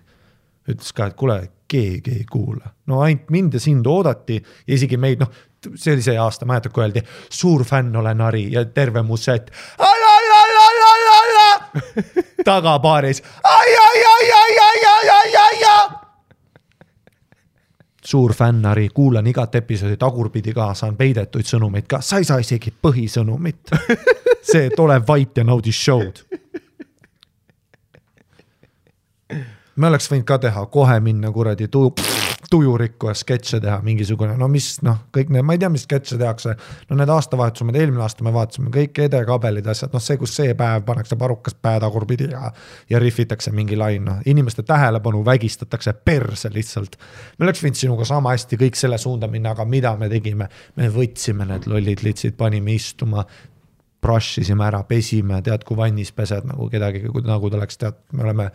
Ütles ka, et kuule, keegi ei kuula. Ainult mind ja sind oodati ja isegi meid, see oli see aasta, ma jätab, kui öeldi, suur fänn olen Ari ja terve mu set. Tagapaaris. Suur fännari, kuulan igat episoodi tagurpidi ka, saan peidetuid sõnumeid ka. Sa ei saa isegi põhisõnumit. See, et ole vait ja naudi show'd. Me oleks võinud ka teha, kohe minna kuradi tujurikku ja sketše teha mingisugune, kõik need, ma ei tea, mis sketše tehakse, need aastavahetused, eelmine aasta me vaatasime kõik edekabelid asjad, see, kus see päev pannakse parukas päätagurpidi ja riffitakse mingi lain, inimeste tähelepanu vägistatakse perse lihtsalt. Me oleks võinud sinuga sama hästi kõik selle suunda minna, aga mida me tegime? Me võtsime need lollid litsid, panime istuma, brush'isime ära, pesime, tead, kui vannis pesed nagu kedagi, nagu ta oleks, tead, me oleme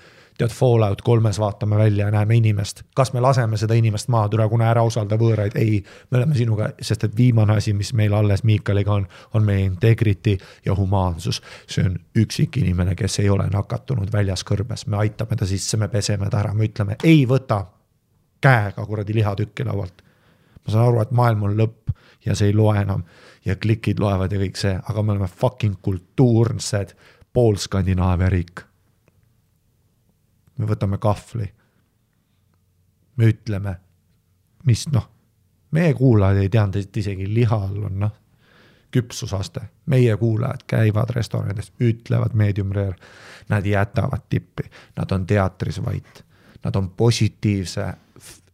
Fallout 3 vaatame välja ja näeme inimest. Kas me laseme seda inimest maha, kuna ära osalda võõraid? Ei, me oleme sinuga, sest et viimane asi, mis meil alles Miikaliga on meie integrity ja humaansus. See on üksik inimene, kes ei ole nakatunud väljas kõrbes. Me aitame ta sisse, me peseme ta ära, me ütleme, ei võta käega kuradi lihatükki laualt. ma saan aru, et maailm on lõpp ja see ei loe enam ja klikid loevad ja kõik see, aga me oleme fucking kultuursed pool Skandinaavia riik. Me võtame kahvli. Me ütleme, mis meie kuulajad ei teanud, et isegi lihal on küpsusaste. Meie kuulajad käivad restoranides, ütlevad medium rare, nad jätavad tippi, nad on teatris vait, nad on positiivse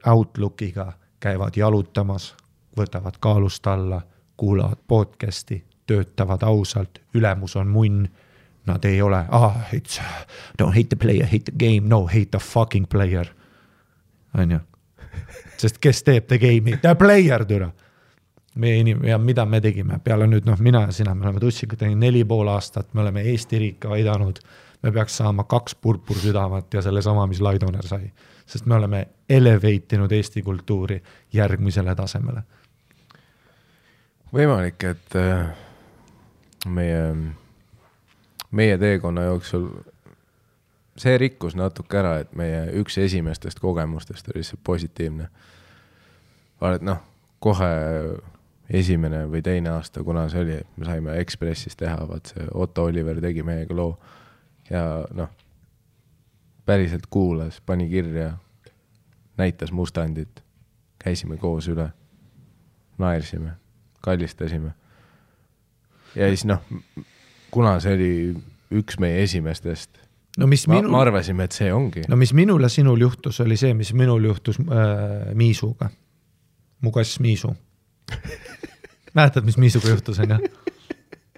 outlookiga, käivad jalutamas, võtavad kaalust alla, kuulavad podcasti, töötavad ausalt, ülemus on munn, nad ei ole, don't hate the player, hate the game, no, hate the fucking player. On ju? Sest kes teeb the game'i? The player, türa. Ja mida me tegime? Peale nüüd, mina ja sina, me oleme Tussiga teinud 4,5 aastat, me oleme Eesti riika aidanud, me peaks saama 2 purpur südamat ja selle sama, mis Laidoner sai. Sest me oleme eleveitinud Eesti kultuuri järgmisele tasemele. Võimalik, et meie teekonna jooksul see rikkus natuke ära, et meie üks esimestest kogemustest oli see positiivne. Vaid kohe esimene või teine aasta, kuna see oli, me saime Ekspressis teha, see Otto Oliver tegi meiega loo ja päriselt kuulas, pani kirja, näitas mustandit, käisime koos üle, naersime, kallistasime. Ja siis kuna see oli üks meie esimestest, ma arvasime, et see ongi. Mis minul ja sinul juhtus, oli see, mis minul juhtus Miisuga. Mu kass Miisu. Mäletad, mis Miisuga juhtus, on ju?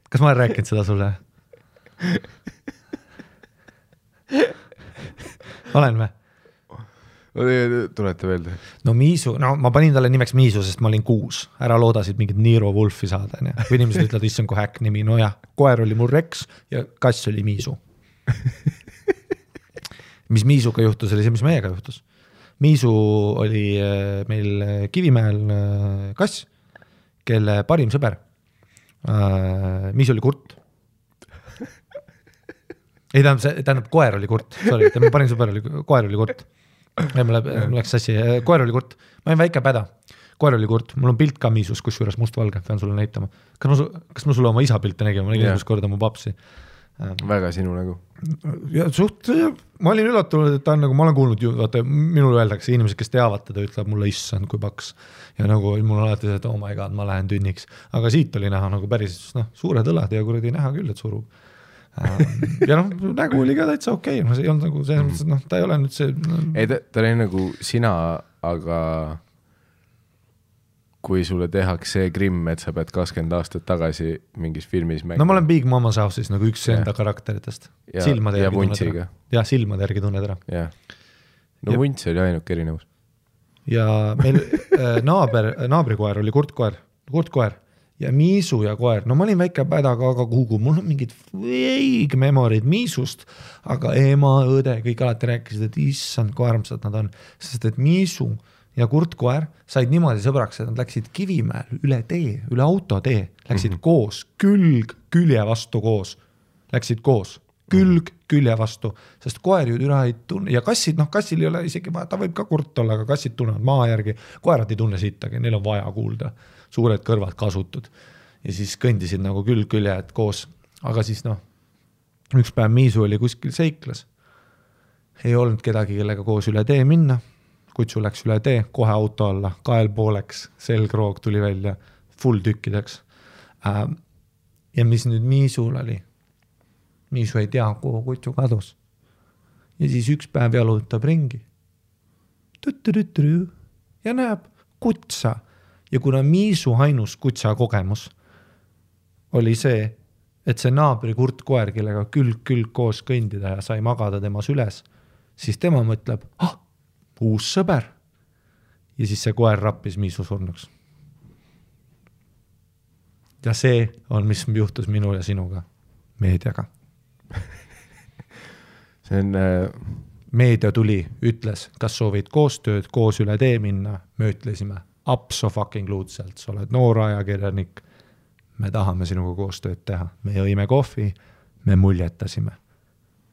Kas ma olen rääkinud seda sulle? Olen või? Tulete veel? Miisu, ma panin talle nimeks Miisu, sest ma olin 6. Ära loodasid mingit Niro Wolfi saada. Kui inimesed ütlevad, issand kui häkk nimi. Koer oli mul Rex ja kass oli Miisu. Mis Miisuga juhtus, oli see, mis meiega juhtus. Miisu oli meil Kivimäel kass, kelle parim sõber. Miisu oli kurt. Ei, tähendab, koer oli kurt. Sorry, parim sõber oli, koer oli kurt. Mul läks sassi. Koer oli kurt. Ma olin väike päda. Koer oli kurt. Mul on pilt ka Miisus, kus juures must-valge. Pean sulle näitama. Kas ma sulle oma isa pilte nägin? Ma nägin esimest korda mu papsi. Väga sinu nägu. Ja ma olin üllatunud, et ta on ma olen kuulnud ju, vaata, minul öeldakse, inimesed, kes teavad teda, ütleb mulle issand, kui paks. Ja mul on alati see, et oh my god, ma lähen tünniks. Aga siit oli näha päris suured õlad ja kuradi näha küll, et surub. Ja nägu oli ka täitsa okei. See ei olnud selles mõttes, ta ei ole nüüd see... Ei, ta oli nagu sina, aga kui sulle tehaks see grimm, et sa pead 20 aastat tagasi mingis filmis mängima. Ma olen Big Mama's House'is üks enda karakteritest. Silmade ja Vuntsiga. Ja silmade järgi tunned ära. Ja. Vunts oli ainuke erinevus. Ja meil naabrikoer oli kurtkoer. Ja Miisu ja koer. Ma olin väike pädaga, aga kuhu. Mul on mingid vague memorid Miisust, aga ema, õde, kõik alati rääkisid, et issand, kui armsad nad on. Sest et Miisu ja kurtkoer said niimoodi sõbraks, et nad läksid Kivimäel üle tee, üle autotee, läksid koos, külje vastu koos, läksid koos, külje vastu, sest koer ju üle ei tunne, ja kassid, kassil ei ole isegi, ta võib ka kurt olla, aga kassid tunnevad maa järgi, koerad ei tunne sittagi, neil on vaja kuulda, suured kõrvad kasutud, ja siis kõndisid nagu külje koos, aga siis üks päev Miisu oli kuskil seiklas, ei olnud kedagi, kellega koos üle tee minna, kutsu läks üle tee, kohe auto alla, kael pooleks, selgroog tuli välja, full tükkideks. Ja mis nüüd Miisul oli? Miisu ei tea, kuhu kutsu kadus. Ja siis üks päev jalutab ringi. Ja näeb kutsa. Ja kuna Miisu ainus kutsa kogemus oli see, et see naabri kurtkoer, kellega külg koos kõndida ja sai magada temas üles, siis tema mõtleb, uus sõber. Ja siis see koer rappis Miisu surnuks. Ja see on, mis juhtus minul ja sinuga, meediaga. See on... Meedia tuli, ütles, kas soovid koostööd, koos üle tee minna, me ütlesime, absoluutselt, sa oled noor ajakirjanik, me tahame sinuga koostööd teha. Me jõime kohvi, me muljetasime.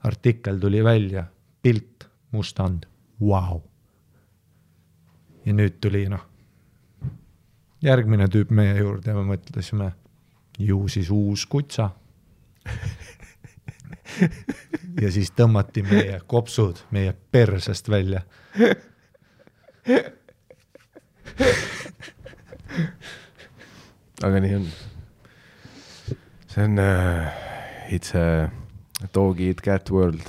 Artikkel tuli välja, pilt, mustand, wow. Ja nüüd tuli järgmine tüüp meie juurde ja me mõtlesime, ju siis uus kutsa. Ja siis tõmmati meie kopsud meie persest välja. Aga nii on. See on it's a dog eat cat world.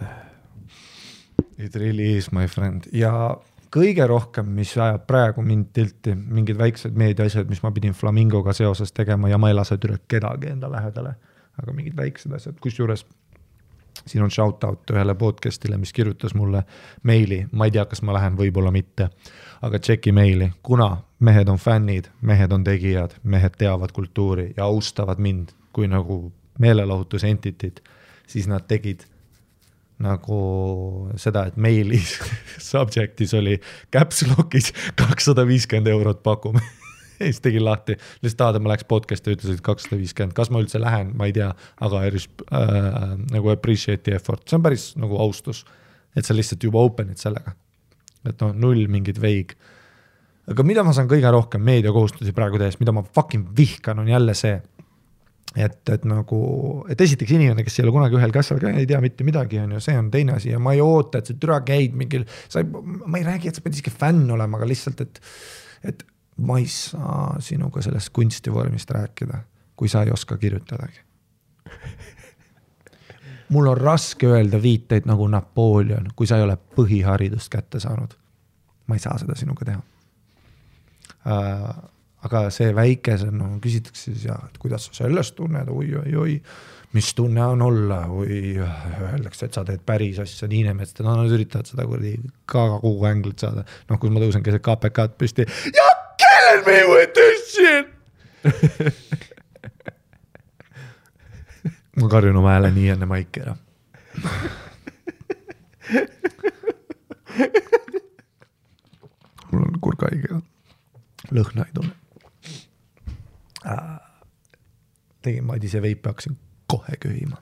It really is, my friend. Ja kõige rohkem, mis ajab praegu mind tilti, mingid väiksed meediaasjad, mis ma pidin Flamingoga seoses tegema ja ma ei lase üle kedagi enda lähedale, aga mingid väiksed asjad, kus juures siin on shoutout ühele podcastile, mis kirjutas mulle meili, ma ei tea, kas ma lähen, võib-olla mitte, aga tšeki meili, kuna mehed on fännid, mehed on tegijad, mehed teavad kultuuri ja austavad mind kui nagu meelelahutus entitit, siis nad tegid nagu seda, et meilis subjectis oli caps lock'is 250 € pakume. Siis tegin lahti, lihtsalt ma läks podcasti ja ütlesid 250, kas ma üldse lähen, ma ei tea, aga nagu appreciate the effort, see on päris nagu austus, et sa lihtsalt juba openid sellega, et null mingid veig. Aga mida ma saan kõige rohkem meediakohustusi praegu tehes, mida ma fucking vihkan, on jälle see, et nagu, et esiteks inimene, kes ei ole kunagi ühel kassal ka ei tea mitte midagi, on ju, see on teine asi ja ma ei oota, et see türa käid mingil, ma ei räägi, et sa pead isegi fänn olema, aga lihtsalt, et ma ei saa sinuga sellest kunstivormist rääkida, kui sa ei oska kirjutadagi. Mul on raske öelda viiteid nagu Napoleon, kui sa ei ole põhiharidust kätte saanud. Ma ei saa seda sinuga teha. Aga see väikese, küsitakse siis, et kuidas sa sellest tunned, oi, mis tunne on olla, või öeldakse, et sa teed päris asja, Niinemets, nad üritavad seda kogu änglit saada. Kui ma tõusen keset KPK-d püsti, ja kill me with this shit! Ma karjun oma hääle nii enne maiki ära. Mul on kurgaige, lõhna ei tunne. Tegin Madise veipi, hakkasin kohe köhima.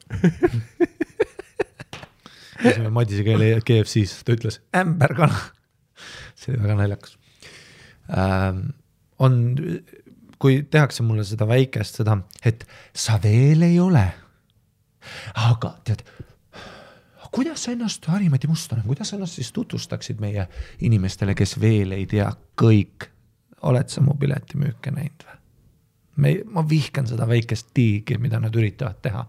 Käisime Madise KFC-s, ta ütles ämberkana. See oli väga naljakas. Kui tehakse mulle seda väikest, seda, et sa veel ei ole. Aga tead, kuidas sa ennast, Harimati Mustonen, kuidas sa ennast siis tutvustaksid meie inimestele, kes veel ei tea kõik? Oled sa mu piletimüüke näinud või? Ma vihkan seda väikest tiigi, mida nad üritavad teha.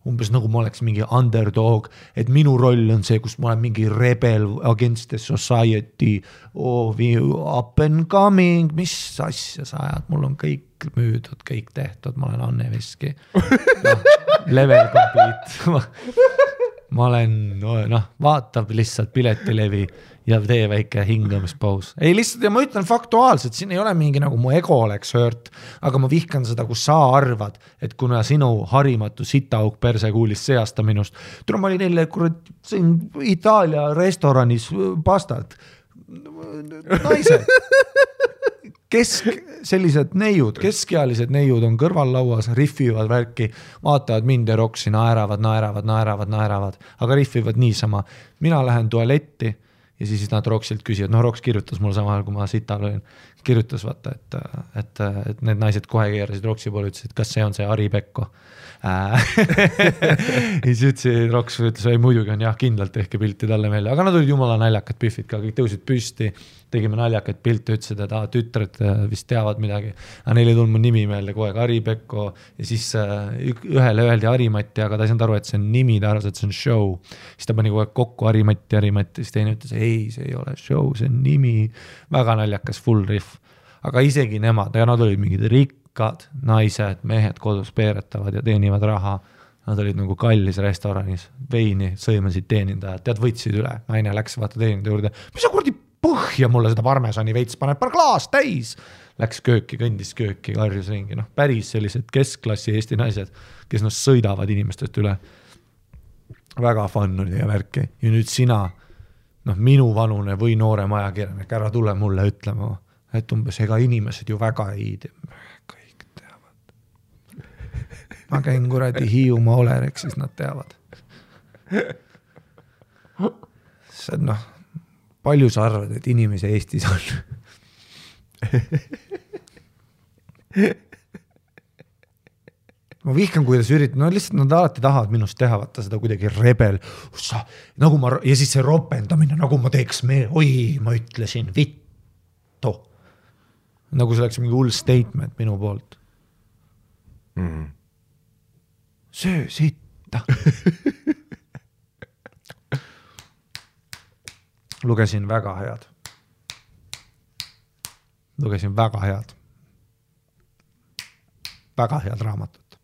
Umbes nagu ma oleks mingi underdog, et minu roll on see, kus ma olen mingi rebel against the society, up and coming, mis asja sa ajad, mul on kõik müüdud, kõik tehtud, ma olen Anne Veski. Level complete. Ma olen, vaatab lihtsalt piletilevi ja tee väike hingamispaus. Ei lihtsalt, ja ma ütlen faktuaalselt, siin ei ole mingi nagu mu ego oleks hört, aga ma vihkan seda, kus sa arvad, et kuna sinu harimatu sitaauk persekuulis seasta minust, tule ma olin neile Itaalia restoranis pastat. Naised. Sellised neiud, keskealised neiud on kõrvallauas, riffivad värki, vaatavad mind ja Roksi, naeravad, aga riffivad niisama. Mina lähen tualetti ja siis nad Roksilt küsivad, Roks kirjutas mulle samal ajal, kui ma sital olin, kirjutas vaata, et need naised kohe keerasid Roksi poole, ütlesid, kas see on see Ari Pekko. Ja siis ütlesid, Roks ütles, ei muidugi on jah, kindlalt tehke pilti talle meelde, aga nad olid jumala naljakad pühvid ka, kõik tõusid püsti, tegime naljakad pilte, ütlesid, et tütred vist teavad midagi, aga neil ei tulnud mu nimi meelde kogu aeg, Ari Pekko, ja siis ühele öeldi Harimati, aga ta ei saanud aru, et see on nimi, ta arvas, et see on show, siis ta pani kogu aeg kokku Harimati, siis teine ütles, ei, see ei ole show, see on nimi, väga naljakas full riff, aga isegi nemad, ja nad olid mingid rikkad naised, mehed kodus peeretavad ja teenivad raha, nad olid nagu kallis restoranis, veini sõimasid teenindajad, tead võtsid üle, naine läks vaata teenindaja juurde, mis sa kurdi põhja mulle seda parmesani veits paneb, paar klaas täis. Läks kööki, kõndis kööki, karjus ringi. Päris sellised keskklassi Eesti naised, kes sõidavad inimestest üle. Väga fun oli ja värki. Ja nüüd sina, minu vanune või noorem ajakirjanik, ära tule mulle ütlema, et umbes ega inimesed ju väga ei tea. Kõik teavad. Ma käin kuradi Hiiumaa Olerek, siis nad teavad. See on palju sa arvad, et inimese Eestis on? ma vihkan, kuidas üritan, no lihtsalt nad alati tahavad minust teha, vaata seda kuidagi rebel, nagu ma, ja siis see ropendamine, nagu ma teeks ma ütlesin, vittu. Nagu see oleks mingi hull statement minu poolt. Söö sitta. Lugesin väga head. Väga head raamatut.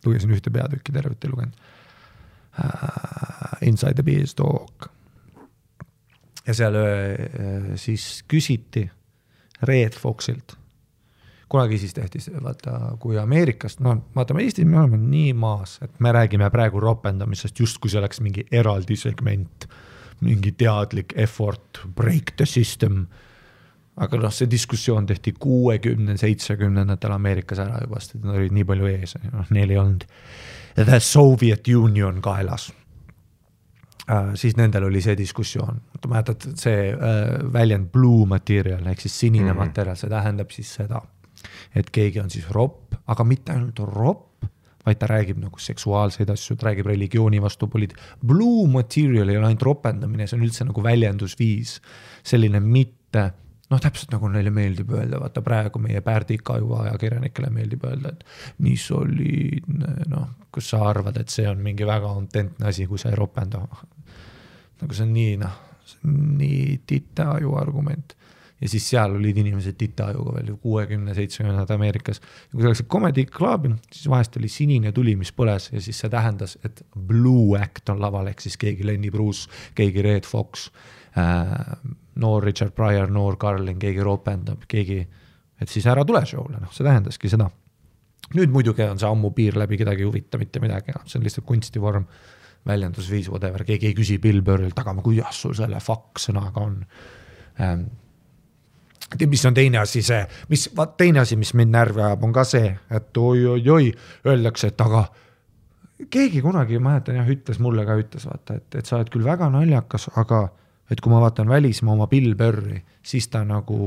Lugesin ühte peatükki, tervet ei lugenud. Inside the Beanstalk. Ja seal siis küsiti Red Foxilt. Kunagi siis tehti, vaata, kui Ameerikast, no vaatame Eestis, me oleme nii maas, et me räägime praegu ropendamisest, just kui see oleks mingi eraldi segment, mingi teadlik effort, break the system. Aga noh, see diskussioon tehti 60-70 Ameerikas ära juba, sest nad olid nii palju ees, neil ei olnud The Soviet Union kaelas. Siis nendel oli see diskussioon. Mäletad, see väljend blue material, ehk siis sinine material, see tähendab siis seda, et keegi on siis ropp, aga mitte ainult ropp, vaid ta räägib nagu seksuaalseid asju, ta räägib religiooni vastu Blue material ei ole ainult ropendamine, see on üldse nagu väljendusviis, selline mitte noh, täpselt nagu neile meeldib öelda, vaata praegu meie Pärdika-aju ajakirjanikele meeldib öelda, et nii soliidne, noh, kus sa arvad, et see on mingi väga autentne asi, kui sa ei ropenda. Nagu see on nii, noh, see on nii tita-aju argument. Ja siis seal olid inimesed tita-ajuga veel 60-70 Ameerikas. Ja kui see oleks comedy club, siis vahest oli sinine tuli, mis põles ja siis see tähendas, et Blue Act on laval, ehk siis keegi Lenny Bruce, keegi Red Fox, noor Richard Pryor, noor Carlin, keegi ropendab, keegi, et siis ära tule showle, noh, see tähendaski seda. Nüüd muidugi on see ammu piir läbi, kedagi huvita mitte midagi, see on lihtsalt kunstivorm, väljendusviis, whatever, keegi ei küsi Bill Burrilt, aga kuidas sul selle fuck sõnaga on. Mis on teine asi see, mis mind närvi ajab, on ka see, et oi, öeldakse, et aga keegi kunagi, ma mäletan, ütles mulle ka, vaata, et sa oled küll väga naljakas, aga et kui ma vaatan välismaa oma Bill Burri, siis ta nagu,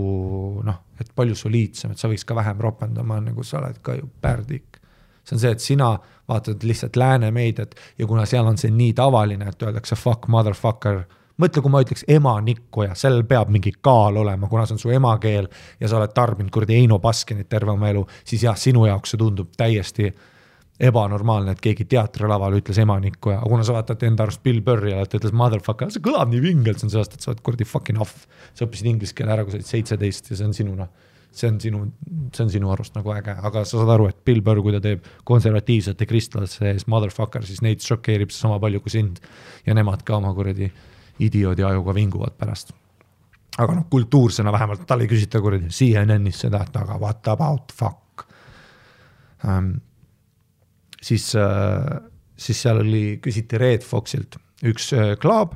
noh, et palju soliidsem, et sa võiks ka vähem ropendama, nagu sa oled ka ju pärdik. See on see, et sina vaatad lihtsalt lääne meediat ja kuna seal on see nii tavaline, et öeldakse fuck motherfucker, mõtle, kui ma ütleks emanikku ja seal peab mingi kaal olema, kuna see on su emakeel ja sa oled tarbinud kurdi Eino Baskinit terve oma elu, siis jah, sinu jaoks see tundub täiesti ebanormaalne, et keegi teatrilaval ütles emanikku ja kuna sa vaatad enda arust Bill Burri ja ta ütles motherfucker, see kõlab nii vingelt, see on sellest, et sa oled kurdi fucking off. Sa õppisid inglise keele ära, kui sa olid 17 ja see on sinuna. See on sinu arust nagu äge, aga sa saad aru, et Bill Burr, kui ta teeb konservatiivsete kristlasse ees motherfucker, siis neid šokeerib sama palju kui sind ja nemad ka oma kuradi idioodi ajuga vinguvad pärast. Aga noh, kultuursena vähemalt tal ei küsita kuradi CNN-is seda, et aga what about fuck. Siis seal küsiti Red Foxilt üks klaab,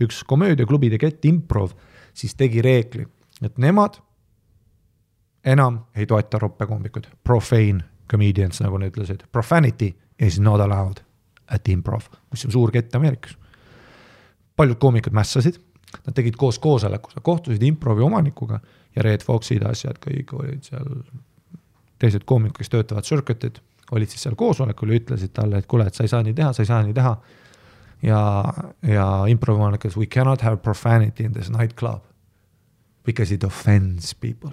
üks komöödiaklubide Get Improv, siis tegi reegli, et nemad enam ei toeta roppekombikud, profane comedians, nagu ne ütlesid. Profanity is not allowed at improv, mis on suur kett Ameerikas. Paljud koomikud mässasid, nad tegid koos koosolekus, kohtusid improvi omanikuga ja Red Foxid asjad kõik olid seal, teised koomikud, kes töötavad circuited, olid siis seal koosolekul ja ütlesid talle, et kuule, et sa ei saa nii teha. Ja improvi omanikud, we cannot have profanity in this nightclub because it offends people.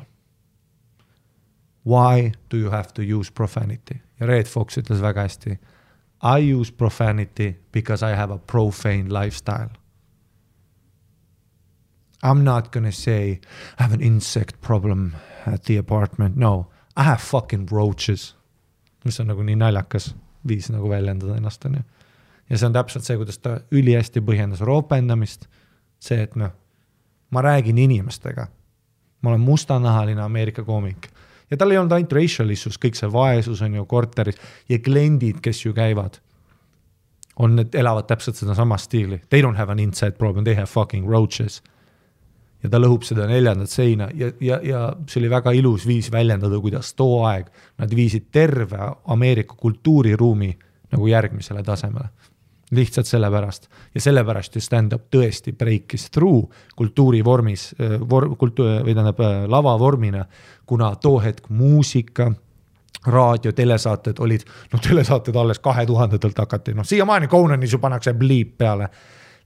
Why do you have to use profanity? Ja Red Fox ütles väga hästi, I use profanity because I have a profane lifestyle. I'm not gonna say I have an insect problem at the apartment. No, I have fucking roaches. Mis on nagu nii naljakas viis nagu väljendada ennast. On ju. Ja see on täpselt see, kuidas ta üli hästi põhjendas roopendamist. See, et noh, ma räägin inimestega. Ma olen mustanahaline Ameerika koomik. Ja tal ei olnud ainult racial issues, kõik see vaesus on ju korteris ja kliendid, kes ju käivad, elavad täpselt seda sama stiili. They don't have an inside problem, they have fucking roaches. Ja ta lõhub seda 4. seina ja see oli väga ilus viis väljendada, kuidas too aeg nad viisid terve Ameerika kultuuriruumi nagu järgmisele tasemele. Lihtsalt sellepärast. Ja sellepärast ju stand-up tõesti breakis through kultuurivormis, lava vormina, kuna too hetk muusika, raadio, telesaated olid, telesaated alles 2000-telt hakati, siiamaani Conanis ju pannakse bliip peale.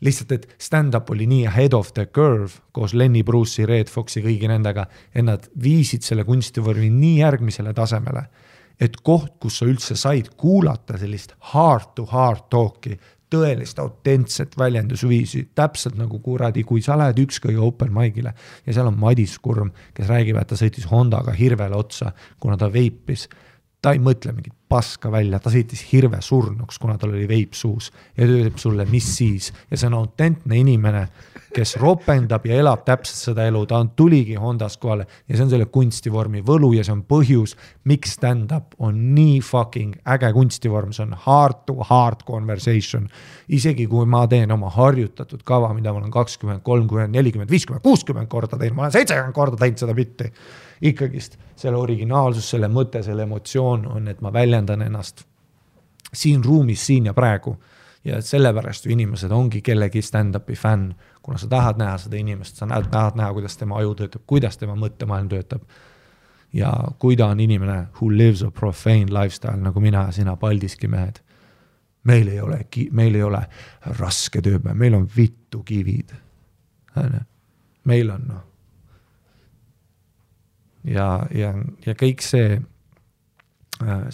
Lihtsalt, et stand-up oli nii ahead of the curve koos Lenny Bruce'i, Red Foxi, kõigi nendega, et nad viisid selle kunstivormi nii järgmisele tasemele, et koht, kus sa üldse said kuulata sellist heart to heart talki, tõelist autentset väljendusviisi, täpselt nagu kuradi, kui sa lähed ükskõige open mic'ile ja seal on Madis Kurm, kes räägib, et ta sõitis Hondaga hirvele otsa, kuna ta veipis. Ta ei mõtle mingit paska välja, ta sõitis hirve surnuks, kuna tal oli veip suus ja ta ütleb sulle, mis siis. Ja see on autentne inimene, kes ropendab ja elab täpselt seda elu, ta tuligi Hondas kohale ja see on selle kunstivormi võlu ja see on põhjus, miks stand-up on nii fucking äge kunstivorm, see on heart to heart conversation. Isegi kui ma teen oma harjutatud kava, mida ma olen 20, 30, 40, 50, 60 korda teinud, ma olen 70 korda teinud seda bitti. Ikkagist selle originaalsus, selle mõte, selle emotsioon on, et ma väljendan ennast siin ruumis, siin ja praegu. Ja sellepärast ju inimesed ongi kellegi stand-upi fänn, kuna sa tahad näha seda inimest, sa tahad näha, kuidas tema aju töötab, kuidas tema mõttemaailm töötab. Ja kui ta on inimene who lives a profane lifestyle, nagu mina ja sina Paldiski mehed, meil ei ole raske tööpäev, meil on vittu kivid. Meil on ja kõik see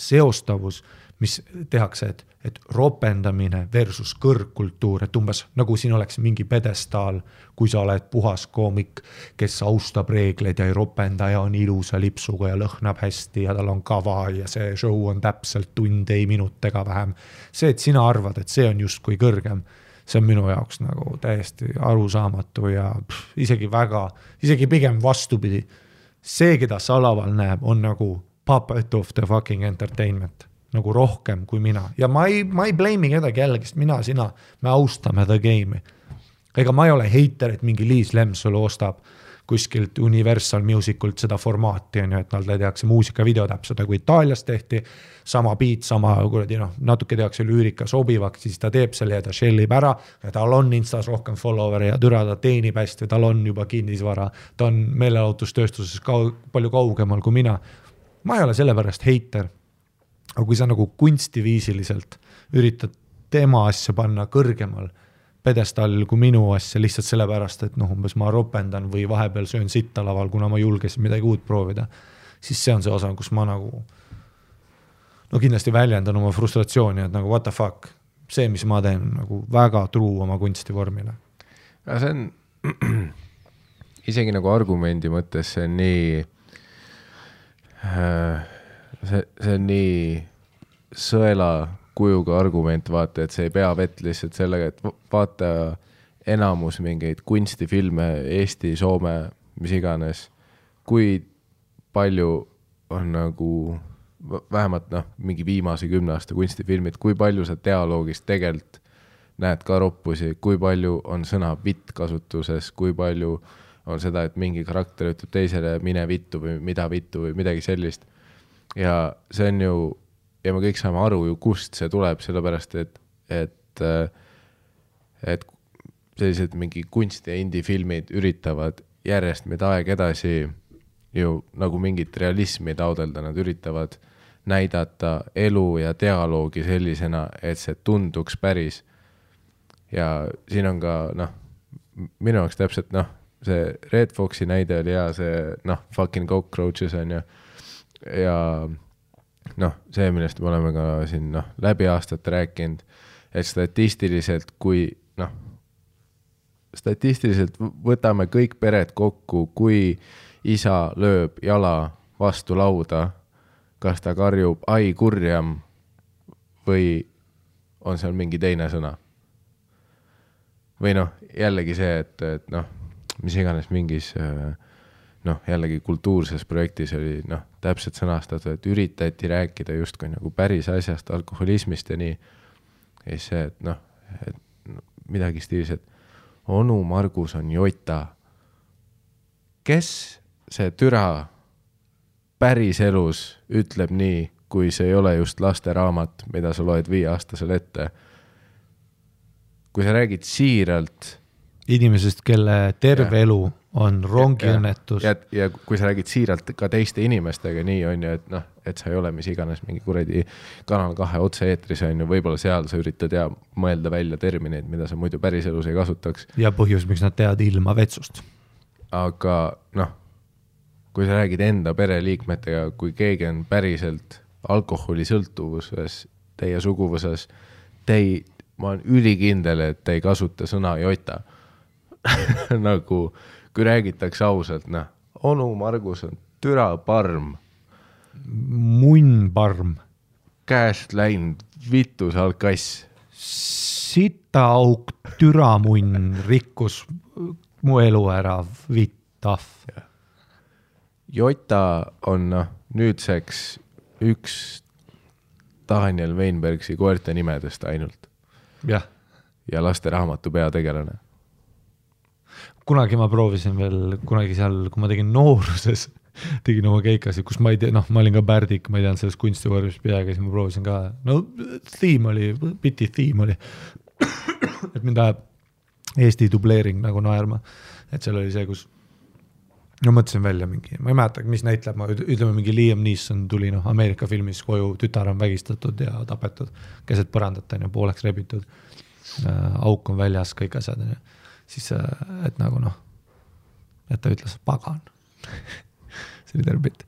seostavus, mis tehakse, et ropendamine versus kõrgkultuur, et umbes nagu siin oleks mingi pedestaal, kui sa oled puhas koomik, kes austab reegleid ja ei ropenda ja on ilusa lipsuga ja lõhnab hästi ja tal on kava ja see show on täpselt tund, ei minutega vähem. See, et sina arvad, et see on justkui kõrgem, see on minu jaoks nagu täiesti arusaamatu ja isegi pigem vastupidi. See, keda Salaval näeb, on nagu puppet of the fucking entertainment, nagu rohkem kui mina. Ja ma ei blame kedagi jällegi, sest mina, sina, me austame the game'i. Ega ma ei ole hater, et mingi Liis Lemsalu ostab kuskilt Universal Musicult seda formaati, et nad tehakse muusikavideo täpselt, kui Itaalias tehti, sama beat, sama natuke tehakse lüürika sobivaks, siis ta teeb selle ja ta shellib ära, ja tal on Instas rohkem follower ja türa ta teenib hästi, tal on juba kinnisvara, ta on meelelahutustööstuses palju kaugemal kui mina. Ma ei ole sellepärast hater, aga kui sa nagu kunstiviisiliselt üritad tema asja panna kõrgemal pedestallil kui minu asja lihtsalt sellepärast, et umbes ma ropendan või vahepeal söön sitta laval, kuna ma julgesin midagi uut proovida, siis see on see osa, kus ma nagu kindlasti väljendan oma frustratsiooni, et nagu what the fuck, see, mis ma teen, nagu väga truu oma kunstivormile. Ja see on isegi nagu argumendi mõttes, see on nii see on nii sõela kujuga argument, vaata, et see ei pea vett lihtsalt sellega, et vaata enamus mingeid kunstifilme, Eesti, Soome, mis iganes, kui palju on nagu vähemalt mingi viimase 10 aasta kunstifilmid, kui palju sa dialoogist tegelikult näed ka roppusi, kui palju on sõna vitt kasutuses, kui palju on seda, et mingi karakter ütleb teisele mine vittu või mida vittu või midagi sellist. Ja see on ju ja me kõik saame aru ju, kust see tuleb, sellepärast, et sellised mingi kunsti ja indie-filmid üritavad järjest meid aeg edasi ju nagu mingit realismi taodelda, nad üritavad näidata elu ja dialoogi sellisena, et see tunduks päris. Ja siin on ka, minu jaoks täpselt, see Red Foxi näide oli hea, see, fucking cockroaches on ju, ja see, millest me oleme ka siin läbi aastat rääkinud, et statistiliselt, statistiliselt võtame kõik pered kokku, kui isa lööb jala vastu lauda, kas ta karjub ai kurjam või on seal mingi teine sõna. Või jällegi see, et mis iganes mingis jällegi kultuurses projektis oli täpselt sõnastatud, et üritati rääkida justkui nagu päris asjast, alkoholismist ja nii. Ja see, et midagi stiilis, et onu Margus on jota. Kes see türa päris elus ütleb nii, kui see ei ole just lasteraamat, mida sa loed 5-aastasele ette? Kui sa räägid siiralt inimesest, kelle terve elu on rongiõnnetus. Ja kui sa räägid siiralt ka teiste inimestega, nii on ju, et noh, et sa ei ole mis iganes mingi kuradi Kanal 2 otse-eetris on ju, võib-olla seal sa üritad mõelda välja termineid, mida sa muidu päriselus ei kasutaks. Ja põhjus, miks nad teavad ilma vetsust. Aga noh, kui sa räägid enda pereliikmetega, kui keegi on päriselt alkoholisõltuvuses, teie suguvõses, ma olen ülikindel, et te ei kasuta sõna jota. Nagu, kui räägitakse ausalt, noh, onu Margus on türa parm. Munn parm. Käest läinud vitus alkass. Sita auk türa munn rikkus mu elu ära vitaf. Jota on nüüdseks üks Daniel Weinbergsi koerte nimedest ainult. Jah. Ja laste raamatu peategelane. Kunagi ma proovisin veel, kunagi seal, kui ma tegin nooruses, tegin oma keikasi, kus ma ei tea, noh, ma olin ka Pärdik, ma ei teanud selles kunstivormis peaga, siis ma proovisin ka, no biti theme oli, et mind ajab Eesti dubleering nagu naerma, et seal oli see, kus no mõtlesin välja mingi, ma ei mäleta, mis näitleb, ma ütleme mingi Liam Neeson tuli Ameerika filmis koju, tütar on vägistatud ja tapetud, keset põrandat on pooleks rebitud, auk on väljas, kõik asjad on siis, et nagu noh, et ta ütles pagan. See oli terve bitt.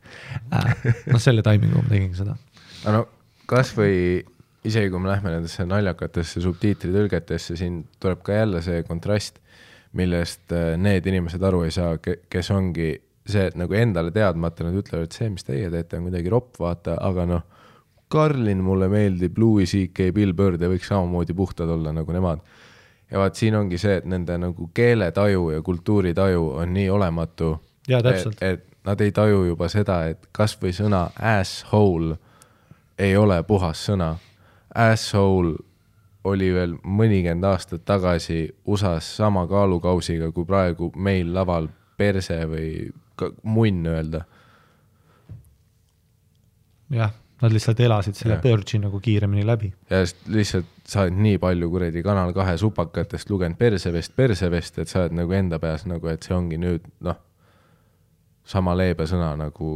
No selle taimingu ma tegin seda. No kas või isegi kui me lähme nendesse naljakatesse subtiitritõlgetesse, siin tuleb ka jälle see kontrast, millest need inimesed aru ei saa, kes ongi see, et nagu endale teadmata nad ütlevad, et see, mis teie teete, on kuidagi ropp, vaata, aga noh, Karlin mulle meeldib, Louis C.K. Bill Bird ja võiks samamoodi puhtad olla nagu nemad. Ja vaat siin ongi see, et nende nagu keeletaju ja kultuuritaju on nii olematu, ja, et nad ei taju juba seda, et kas või sõna asshole ei ole puhas sõna. Asshole oli veel mõnikend aastat tagasi USAs sama kaalukausiga, kui praegu meil laval perse või munn öelda. Jah, nad lihtsalt elasid selle pörgi nagu kiiremini läbi. Ja lihtsalt sa oled nii palju kuredi Kanal 2 supakatest lugenud persevest, et sa oled nagu enda peas nagu, et see ongi nüüd, noh, sama leebe sõna nagu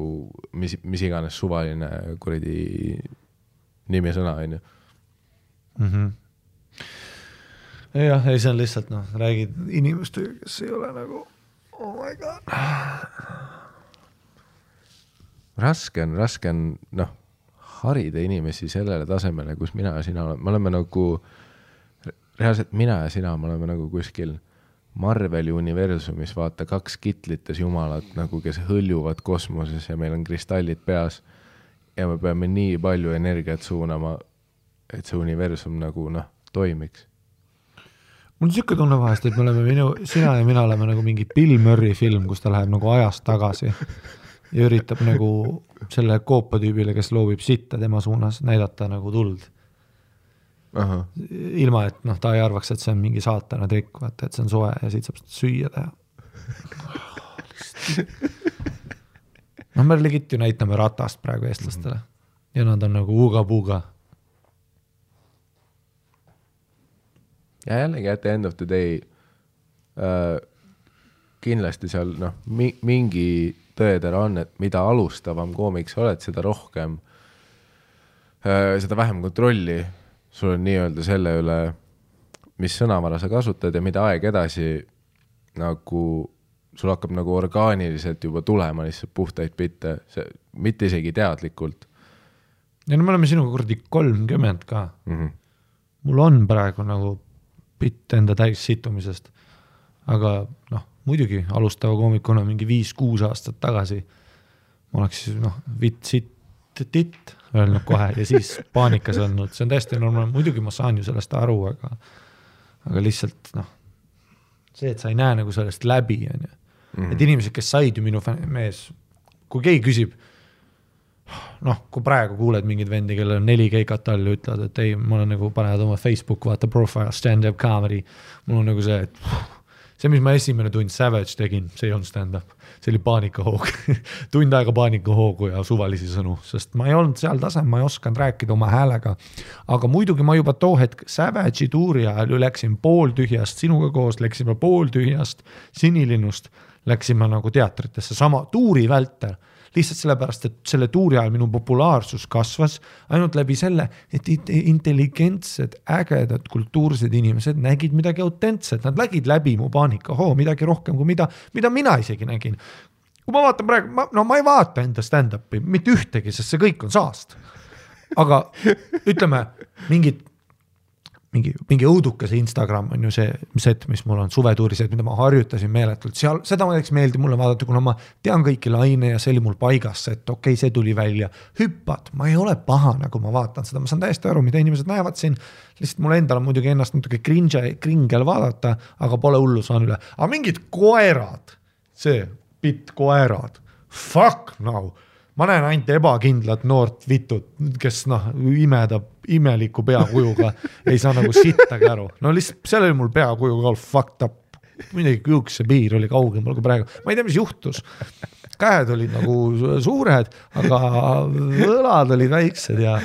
mis iganes suvaline kuredi nimi sõna, on ju. Jah, ei see on lihtsalt, noh, räägid inimestega, kes ei ole nagu, oh my god. Raske on, noh, harida inimesi sellele tasemele, kus mina ja sina oleme. Me oleme nagu, reaalselt mina ja sina, me oleme nagu kuskil Marveli universumis, vaata 2 kitlites jumalad, nagu kes hõljuvad kosmoses ja meil on kristallid peas ja me peame nii palju energiat suunama, et see universum nagu, noh, toimiks. Mul on siuke tunne vahest, et me oleme sina ja mina oleme nagu mingi Bill Murray film, kus ta läheb nagu ajast tagasi ja üritab nagu selle koopatüübile, kes loobib sitta tema suunas, näidata nagu tuld. Aha. Ilma, et noh, ta ei arvaks, et see on mingi saatana trikk, vaata, et see on soe ja siit saab süüa teha. No me legit ju näitame ratast praegu eestlastele ja nad on nagu uga-puga. Ja jällegi at the end of the day kindlasti seal noh, mingi tõedera on, et mida alustavam koomiks oled, seda rohkem seda vähem kontrolli sul on nii-öelda selle üle, mis sõnavara sa kasutad ja mida aeg edasi nagu sul hakkab nagu orgaaniliselt juba tulema lihtsalt puhtaid bitte, mitte isegi teadlikult. Ja no me oleme sinuga kurdi 30 ka. Mul on praegu nagu bitt enda täis situmisest, aga noh, muidugi alustava koomikuna mingi 5-6 aastat tagasi ma oleks noh, titt öelnud kohe ja siis paanikas olnud. See on täiesti normaalne. Muidugi ma saan ju sellest aru, aga lihtsalt noh, see, et sa ei näe nagu sellest läbi. On ju. Et inimesed, kes said ju minu mees, kui keegi küsib, noh, kui praegu kuuled mingid vendi, kellel on 4 keikat all ja ütlevad, et ei, ma olen nagu panevad oma Facebook, vaata profile, stand-up comedy. Mul on nagu see, et see, mis ma esimene tund Savage tegin, see ei olnud stand-up, see oli paanikahoog tund aega paanikahoogu ja suvalisi sõnu, sest ma ei olnud seal tasem, ma ei osanud rääkida oma häälega, aga muidugi ma juba too hetk Savage'i tuuri ajal ju läksin pooltühjast, sinuga koos läksime pooltühjast Sinilinnust, läksime nagu teatritesse, sama tuuri vältel, lihtsalt sellepärast, et selle tuuri ajal minu populaarsus kasvas ainult läbi selle, et intelligentsed, ägedad, kultuursed inimesed nägid midagi autentset, nad lägid läbi mu paanikahoo, midagi rohkem kui mida mina isegi nägin. Kui ma vaatan praegu, ma ei vaata enda stand-upi, mitte ühtegi, sest see kõik on saast. Aga ütleme, mingi õudukese Instagram on ju see set, mis mul on suvetuuriset, mida ma harjutasin meeletult. Seal, seda ma näiteks meeldi mulle vaadata, kuna ma tean kõiki laine ja see oli mul paigas, et okei, see tuli välja. Hüppad, ma ei ole pahane, kui ma vaatan seda. Ma saan täiesti aru, mida inimesed näevad siin. Lihtsalt mul endal on muidugi ennast natuke kringel vaadata, aga pole hullu saan üle. Aga mingid koerad, see pitt koerad, fuck no. Ma näen ainult ebakindlat noort vitut, kes imedab imeliku peakujuga, ei saa nagu sittagi aru. No lihtsalt seal oli mul peakujuga all fucked up. Midagi küüks see piir oli kaugemal kui praegu. Ma ei tea, mis juhtus. Käed olid nagu suured, aga võlad olid väiksed ja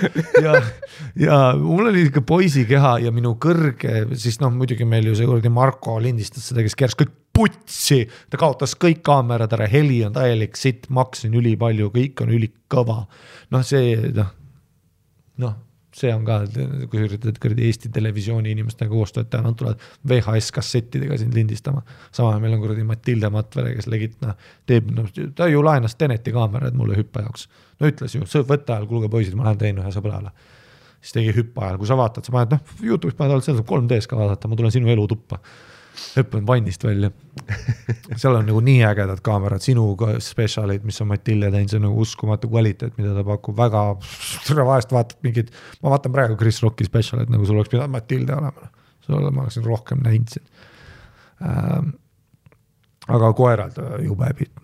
mul oli ikka poisi keha ja minu kõrge, siis muidugi meil ju see kuradi Marko lindistas seda, kes keras kõik putsi, ta kaotas kõik kaamerad ära, heli on täielik sitt, maksin üli palju, kõik on ülikõva. See on ka, kui üritad Eesti televisiooni inimestega koostööd teha, nad tulevad VHS-kassettidega sind lindistama. Sama meil on kuradi Matilde Matvere, kes legit, ta ju laenas Teneti kaamerad mulle hüppa jaoks. No ütles ju, võtta ajal, kuulge poisid, ma lähen tein ühe sõbrale. Siis tegi hüppa ajal, kui sa vaatad, sa paned, YouTube'is paned alt, seal saab 3Ds ka vaadata, ma tulen sinu elu tuppa. Hüppan vannist välja. Seal on nagu nii ägedad kaamerad, sinu specialid, mis on Matilde teinud, see on nagu uskumatu kvaliteet, mida ta pakub väga, vahest vaatad mingid, ma vaatan praegu Chris Rocki specialid, nagu sul oleks pidanud Matilde olema, ma oleksin rohkem näinud siin. Aga koerad jube pitt,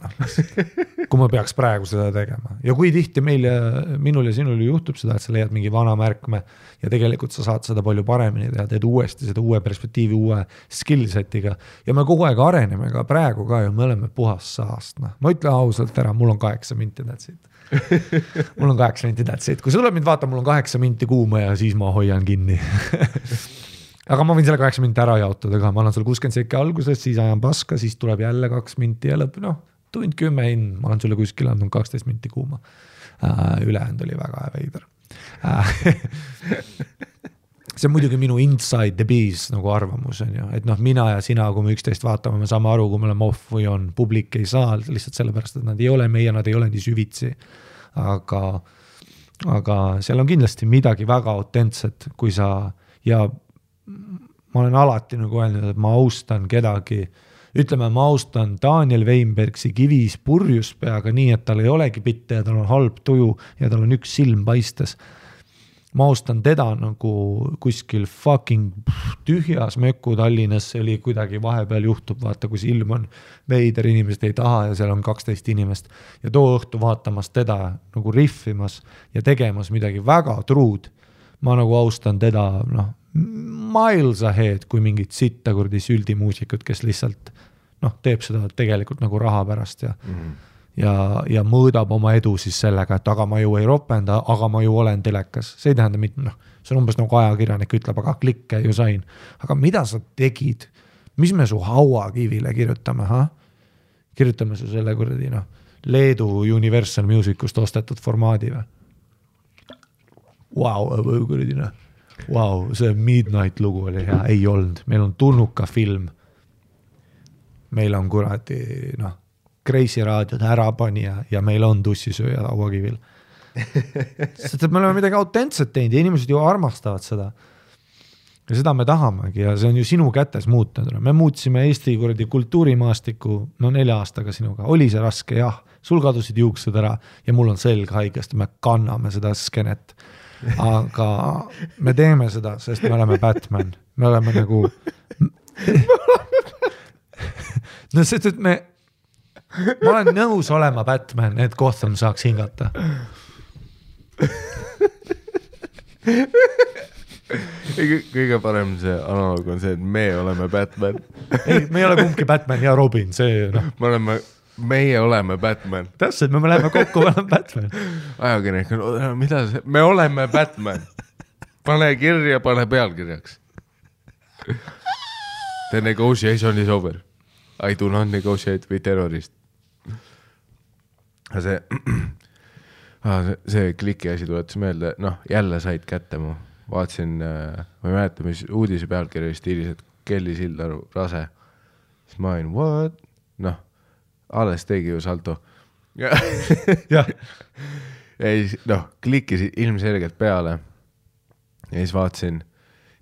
kui ma peaks praegu seda tegema. Ja kui tihti minul ja sinul juhtub seda, et sa leiad mingi vana märkme ja tegelikult sa saad seda palju paremini teha, teed uuesti seda uue perspektiivi, uue skillsetiga ja me kogu aeg areneme ka praegu ka ja me oleme puhas saast. Ma ütlen ausalt ära, mul on 8 minti tätsid. Mul on 8 minti tätsid. Kui sa tuleb mind vaata, mul on 8 minti kuuma ja siis ma hoian kinni. Aga ma võin selle 8 minti ära jaotada ka, ma annan sulle 60 sekki alguses, siis ajan paska, siis tuleb jälle 2 minti ja lõpp, tund 10 in, ma olen sulle kuskil andnud 12 minti kuuma. Ülehänd oli väga veider. See on muidugi minu inside the bees nagu arvamus on ju, et mina ja sina, kui me 11 vaatame, me saame aru, kui me oleme off või on, publik ei saa lihtsalt sellepärast, et nad ei ole meie, nad ei ole nii süvitsi. Aga seal on kindlasti midagi väga autentset, kui sa ja ma olen alati nagu öelnud, et ma austan kedagi, ütleme, ma austan Daniel Weinbergsi kivis purjuspeaga nii, et tal ei olegi pitte ja tal on halb tuju ja tal on üks silm paistes. Ma austan teda nagu kuskil fucking tühjas möku Tallinnas, see oli kuidagi vahepeal juhtub, vaata, kui silm on veider, inimesed ei taha ja seal on 12 inimest ja too õhtu vaatamas teda nagu riffimas ja tegemas midagi väga truud. Ma nagu austan teda, miles ahead, kui mingid sitta kurdi süldimuusikud, kes lihtsalt teeb seda tegelikult nagu raha pärast ja mõõdab oma edu siis sellega, et aga ma ju ei ropenda, aga ma ju olen telekas. See ei tähenda mitte, see on umbes nagu ajakirjanik ütleb, aga klikke ju sain. Aga mida sa tegid? Mis me su hauakivile kirjutame? Kirjutame su selle kurdi, Leedu Universal Musicust ostetud formaadi või? Wow, see Midnight lugu oli hea, ei olnud. Meil on Turnuka film. Meil on kuradi, Kreisi raadiod ärapanija ja meil on tussisööja hauakivil. Sest me oleme midagi autentset teinud ja inimesed ju armastavad seda. Ja seda me tahamegi ja see on ju sinu kätes muutunud. Me muutsime Eesti kuradi kultuurimaastiku 4 aastaga sinuga. Oli see raske? Jah. Sul kadusid juuksed ära ja mul on selg haigest ja me kanname seda skenet. Aga me teeme seda, sest me oleme Batman. Me oleme nagu sest, et ma olen nõus olema Batman, et Gotham saaks hingata. kõige parem see analoog on see, et me oleme Batman. Ei, me ei ole kumbki Batman ja Robin, see noh. Meie oleme Batman. Täpselt, me läheme kokku, me oleme Batman. Ajakirjanik on, mida see? Me oleme Batman. Pane kirja, pane pealkirjaks. The negotiation is over. I do not negotiate with terrorist. See kliki asi tuletas meelde, noh, jälle said kätte mu. Vaatasin, ma ei mäleta, mis uudise pealkirja stiilis, et Kelly Sildaru rase. Siis ma olin, what? Noh, alles tegi ju salto. Ja siis, noh, klikkis ilmselgelt peale. Ja siis vaatasin,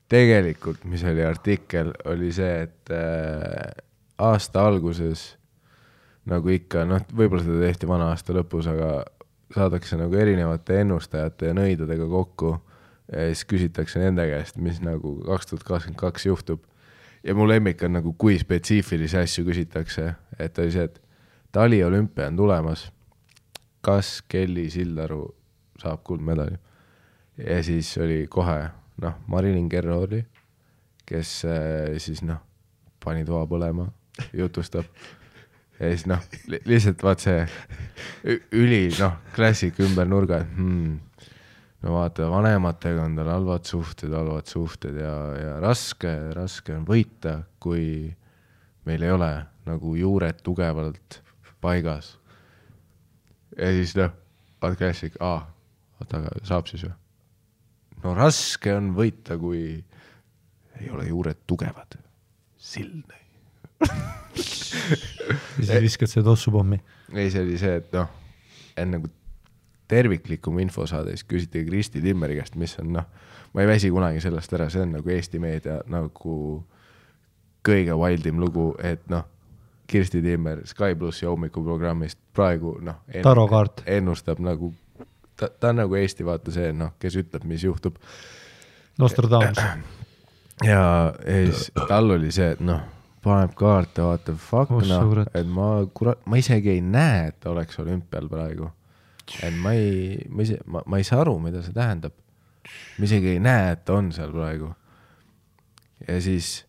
tegelikult, mis oli artikkel, oli see, et aasta alguses, nagu ikka, noh, võib-olla seda tehti vana aasta lõpus, aga saadakse nagu erinevate ennustajate ja nõidadega kokku ja siis küsitakse nende käest, mis nagu 2022 juhtub. Ja mu lemmik on nagu, kui spetsiifilisi asju küsitakse, et oli see, et Tali olümpia on tulemas. Kas Kelly Sildaru saab kuldmedali? Ja siis oli kohe, noh, Marilyn Kerro oli, kes siis, noh, pani toa põlema, jutustab. Ja siis, noh, lihtsalt vaat see üli, noh, klassik ümber nurga, no vaata, vanematega on tal halvad suhted ja raske on võita, kui meil ei ole nagu juured tugevalt paigas. Ja siis, noh, vaat klassik, aga saab siis ju. No raske on võita, kui ei ole juured tugevad. Silne. Siis viskad see tossupommi. Ei, see oli see, et noh, enne kui terviklikum info saada, siis küsiti Kristi Timmeri käest, mis on, noh, ma ei väsi kunagi sellest ära, see on nagu Eesti meedia nagu kõige wildim lugu, et noh, Kristi Timmer Sky Plus ja hommikuprogrammist praegu, noh, ennustab nagu, ta on nagu Eesti vaata see, noh, kes ütleb, mis juhtub. Nostradamus. Ja siis tal oli see, et noh, paneb kaarte, vaata, fuck, noh, et ma isegi ei näe, et ta oleks olümpial praegu. Et ma ei saa aru, mida see tähendab. Ma isegi ei näe, et ta on seal praegu. Ja siis,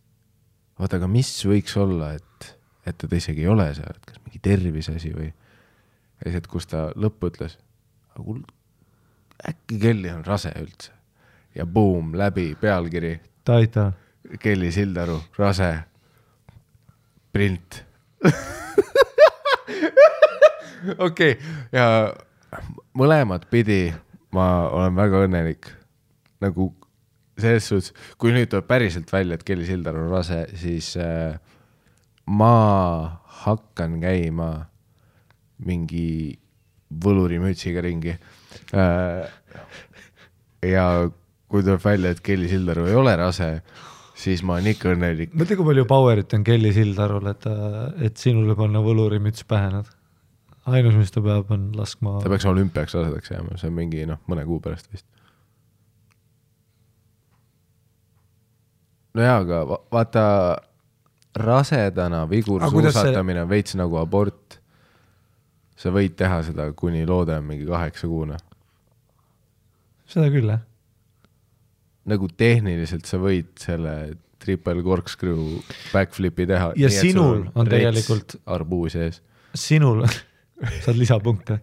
vaata, aga mis võiks olla, et ta isegi ei ole seal, et kas mingi tervisasi või ja siis, et kus ta lõppu ütles, äkki Kelly on rase üldse. Ja boom, läbi pealkiri. Taita. Kelly Sildaru, rase. Print. Okei, ja mõlemad pidi ma olen väga õnnelik. Nagu selles suhtes, kui nüüd tuleb päriselt välja, et Kelly Sildaru on rase, siis ma hakkan käima mingi võlurimütsiga ringi. Ja kui tuleb välja, et Kelly Sildaru ei ole rase, siis ma olen ikka õnnelik. Mõtle, kui palju powerit on Kelly Sildarul, et sinule panna võlurimüts pähe nad. Ainus, mis ta peab, on laskma... Ta peaks olümpiaks rasedaks jääma, see on mingi, noh, mõne kuu pärast vist. No jaa, aga vaata rasedana vigursuusatamine on veits nagu abort. Sa võid teha seda, kuni loode on mingi 8 kuuna. Seda küll, jah. Nagu tehniliselt sa võid selle triple corkscrew backflipi teha. Ja nii, sinul on tegelikult... Arbuu sees. Sinul, saad lisapunkte.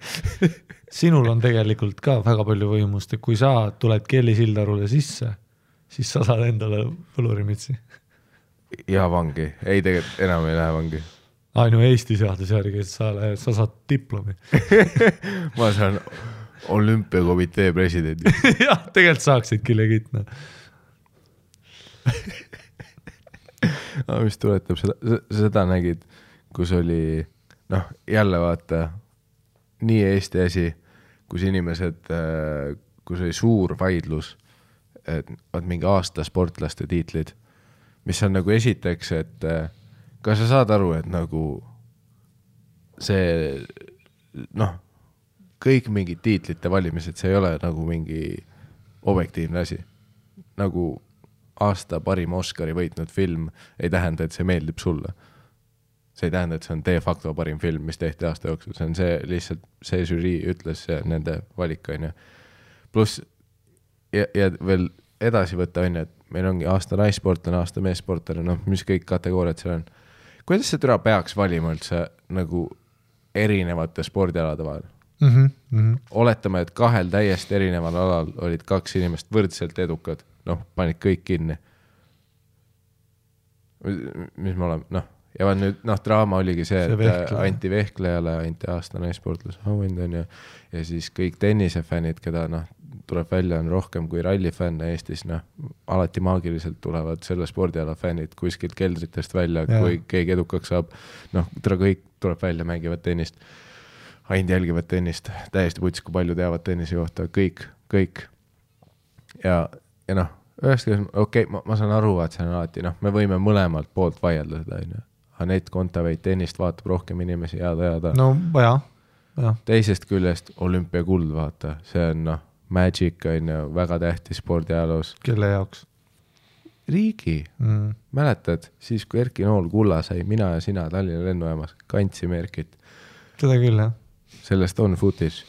Sinul on tegelikult ka väga palju võimust, et kui sa tuled Kelly Sildarule sisse, siis sa saad endale võlurimitsi. Ja vangi. Ei, tegelikult enam ei lähe vangi. Ainu Eesti seadus järgi, et sa saad diplomi. Ma saan olümpiakomitee presidendi. Jah, tegelikult saaksidki legitna. Mis tuletab seda nägid, kus oli, noh, jälle vaata, nii Eesti asi, kus inimesed, kus oli suur vaidlus, et mingi aasta sportlaste tiitlid, mis on nagu esiteks, et kas sa saad aru, et nagu see, noh, kõik mingid tiitlite valimised, see ei ole nagu mingi objektiivne asi. Nagu aasta parim Oscari võitnud film ei tähenda, et see meeldib sulle. See ei tähenda, et see on de facto parim film, mis tehti aasta jooksul. See on see lihtsalt, see žürii ütles nende valikaine. Plus, ja veel edasi võtta on, et meil ongi aasta naissportlane, aasta meessportlane, noh, mis kõik kategooriad seal on. Kuidas see türa peaks valima üldse nagu erinevate spordialade vahel? Oletame, et 2 täiesti erineval alal olid 2 inimest võrdselt edukad, noh, panid kõik kinni. Mis me oleme, noh, ja nüüd, noh, draama oligi see, et anti Vehklejale, anti aasta naissportlase auhind on ja siis kõik tennisefännid, keda, noh, tuleb välja on rohkem kui rallifänne Eestis, noh, alati maagiliselt tulevad selle spordiala fännid kuskilt keldritest välja, kui keegi edukaks saab, noh, kõik tuleb välja, mängivad tennist, ainult jälgivad tennist, täiesti puts, kui palju teavad tennise kohta, kõik. Ja noh, okei, ma saan aru, et see on alati, noh, me võime mõlemalt poolt vaielda seda, Anett Kontaveit tennist vaatab rohkem inimesi jääda. No, ja. Teisest küljest olümpiakuld, vaata, see on, noh, Magic on ju väga tähtis spordiajaloos. Kelle jaoks? Riigi. Mäletad, siis kui Erki Nool kulla sai, mina ja sina Tallinna lennujaamas kandsime Erkit. Seda küll, jah. Sellest on footage.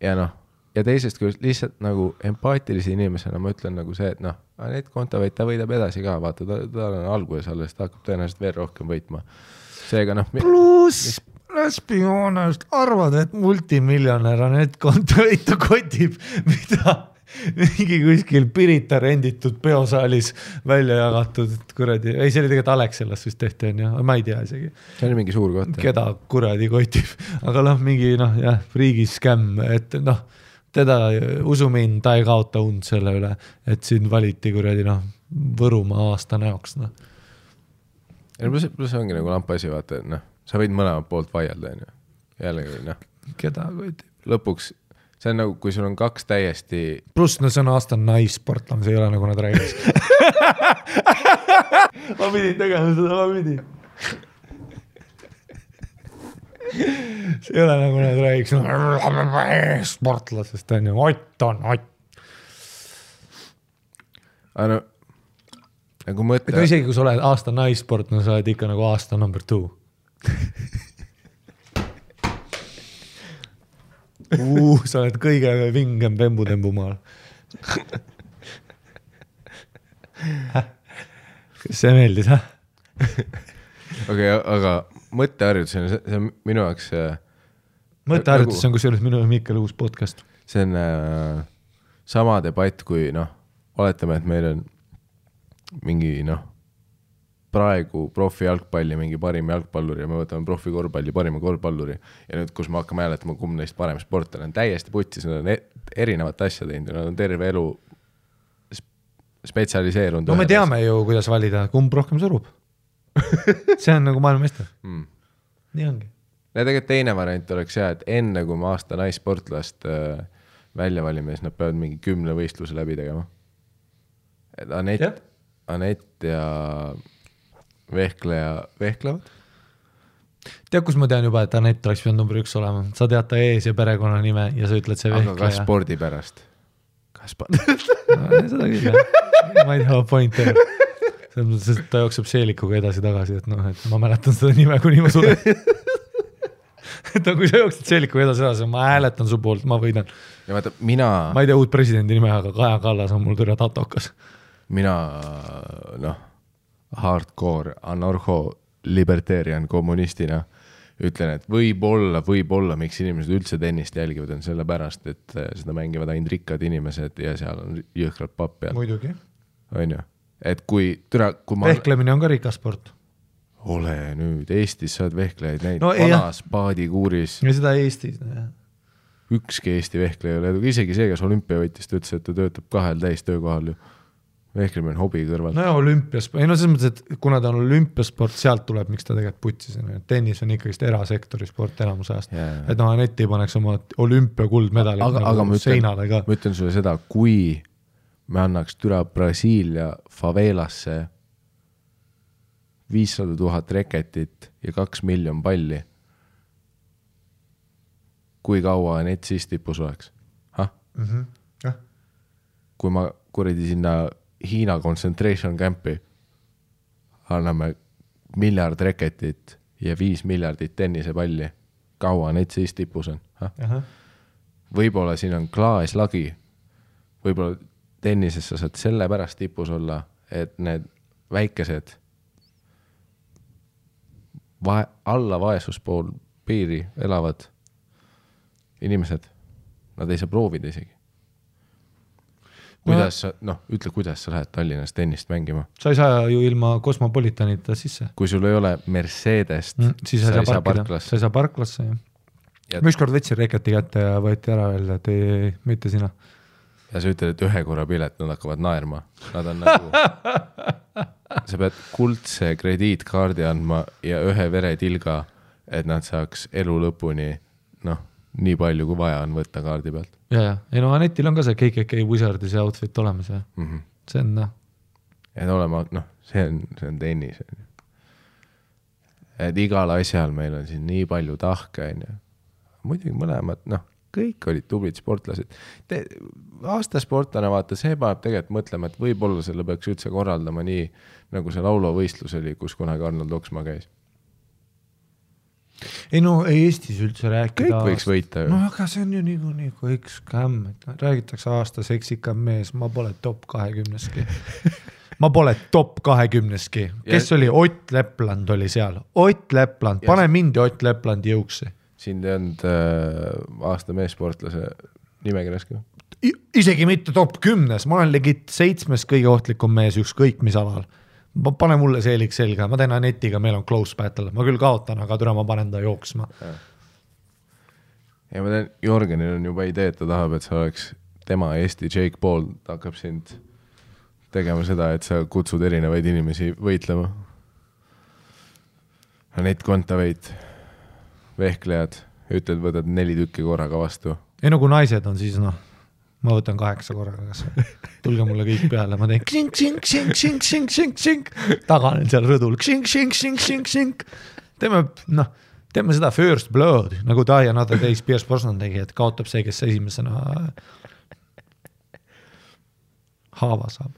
Ja noh, ja teisest küljest lihtsalt nagu empaatilise inimesena ma ütlen nagu see, et noh, Anett Kontaveit, ta võidab edasi ka, vaata, ta on alguses alles, ta hakkab tõenäoliselt veel rohkem võitma. Seega noh... Plus... Läspijoonest arvad, et multimiljonär Anett Kontaveit kotib, mida mingi kuskil Pirita renditud peosaalis välja jagatud, et kuradi, ei, see oli tegelikult Alexelas vist tehti, on ju, ma ei tea isegi. See oli mingi suur koht. Keda kuradi kotib, aga noh, mingi noh, jah, riigiskämm, et noh, teda usumin, ta ei kaota und selle üle, et siin valiti kuradi noh, Võrumaa aasta näoks, noh. Ja plus ongi nagu lampasi, vaata, et noh, sa võid mõlemad poolt vaielda, on ju. Jällegi, noh. Keda kotib? Lõpuks, see on nagu, kui sul on 2 täiesti... Plus, no see on aasta naissportlane, see ei ole nagu nad räägiks. ma pidin tegema seda, ma pidin. see ei ole nagu nad räägiks. Sportlasest on ju, Ott on Ott. Aga no, nagu mõtle... No isegi, kui sa oled aasta naissportlane, sa oled ikka nagu aasta number 2. sa oled kõige vingem pembutembu maal. Kas see meeldis, hä? Okei, aga mõtteharjutus on, see on minu jaoks... Mõtteharjutus on kusjuures minu ja Mikkel uus podcast. See on sama debatt, kui noh, oletame, et meil on mingi noh, praegu profi jalgpalli mingi parim jalgpalluri ja me võtame profi korvpalli parima korvpalluri ja nüüd, kus me hakkame hääletama, kumb neist parem sportlane on täiesti putsis, nad on erinevat asja teinud ja nad on terve elu spetsialiseerunud. No me teame ju, kuidas valida, kumb rohkem surub. see on nagu maailmameister. Nii ongi. Ja tegelikult teine variant oleks hea, et enne kui me aasta naissportlast välja valime, siis nad peavad mingi 10 võistluse läbi tegema. Et Anett ja Vehkleja vehklevad. Tead, kus ma tean juba, et Anett oleks pidanud number 1 olema. Sa tead ta ees ja perekonna nime ja sa ütled see Vehkleja. Aga kas spordi pärast? No, seda küll, jah. Ma ei tea, point on. Sest ta jookseb seelikuga edasi-tagasi, et noh, et ma mäletan seda nime, kuni ma sulen. et kui sa jooksid seelikuga edasi-tagasi, ma hääletan su poolt, ma võidan. Ja vaata, ma ei tea uut presidendi nime, aga Kaja Kallas on mul türa tatokas. Mina, noh, hardcore, anarho, libertarian, kommunistina ütlen, et võib-olla, miks inimesed üldse tennist jälgivad, on selle pärast, et seda mängivad ainult rikkad inimesed ja seal on jõhkralt papp peal. Muidugi. On ju? Et kui ma... Vehklemine on ka rikas sport. Ole nüüd, Eestis saad vehklejaid näid, no, vanas paadikuuris. Ja seda Eestis, jah. Ükski Eesti vehkleja ei ole, isegi see, kas olümpiavõitist ütles, et ta töötab 2 täistöökohal ju. Vehklemine on hobi kõrval. No ja olümpiasport, ei no selles mõttes, et kuna ta on olümpiasport, sealt tuleb, miks ta tegelikult putsis. Tennis on ikkagi erasektori sport enamus ajast. Et no Anett ei paneks oma olümpiakuldmedali nagu seinale ka. Ma ütlen sulle seda, kui me annaks türa Brasiilia favelasse 500 000 reketit ja 2 miljon palli, kui kaua Anett siis tipus oleks? Kui ma kuradi sinna Hiina concentration campi anname 1 miljard reketit ja 5 miljardit tennisepalli, kaua need siis tipus on? Võib-olla siin on klaaslagi, võib-olla tennises sa saad selle pärast tipus olla, et need väikesed alla vaesuspool piiri elavad inimesed, nad ei saa proovida isegi. Kuidas sa, ütle, kuidas sa lähed Tallinnas tennist mängima? Sa ei saa ju ilma Kosmopolitanita sisse. Kui sul ei ole Mercedest, siis sa ei saa parklasse. Sa ei saa parklasse, jah. Ma ükskord võtsin reketi kätte ja võeti ära veel, et ei, mitte sina. Ja sa ütled, et ühe korra pilet, nad hakkavad naerma. Nad on nagu... sa pead kuldse krediitkaardi andma ja ühe veretilga, et nad saaks elu lõpuni, nii palju kui vaja on võtta kaardi pealt. Ja. Ei Anetil on ka see KKK Wizardi see outfit olemas, jah. See on, Et olema, see on tennis. Et igal asjal meil on siin nii palju tahke, muidugi mõlemad, kõik olid tublid sportlased. Aastasportlane vaata, see paneb tegelikult mõtlema, et võib-olla selle peaks üldse korraldama nii, nagu see laulovõistlus oli, kus kunagi Arnold Oksmaa käis. Ei Eestis üldse rääkida. Kõik võiks võita ju. Aga see on ju nii kõik skämm, et räägitakse aasta seksikam mees, ma pole top 20-ski. Ma pole top 20-ski. Kes oli? Ott Lepland oli seal. Ott Lepland, pane mind Ott Leplandi jõuksi. Siin te olnud aasta meessportlase nimekirjaski? Isegi mitte top 10, ma olen legit 7 kõige ohtlikum mees ükskõik mis alal. Pane mulle seelik selga, ma teen Anetiga, meil on close battle, ma küll kaotan, aga türa ma panen ta jooksma. Ja ma teen, Jorgenil on juba idee, et ta tahab, et sa oleks tema Eesti Jake Paul, ta hakkab sind tegema seda, et sa kutsud erinevaid inimesi võitlema. Anet Kontaveit, vehklejad, ütled, võtad 4 tükki korraga vastu. Ei kui naised on siis ma võtan 8 korraga, kas tulge mulle kõik peale, ma teen ksink, ksink, ksink, ksink, ksink, ksink, ksink, taganen seal rõdul, ksink, ksink, ksink, ksink, ksink. Teeme seda first blood, nagu ta ja Another Days Pierce Brosnan tegi, et kaotab see, kes esimesena haava saab.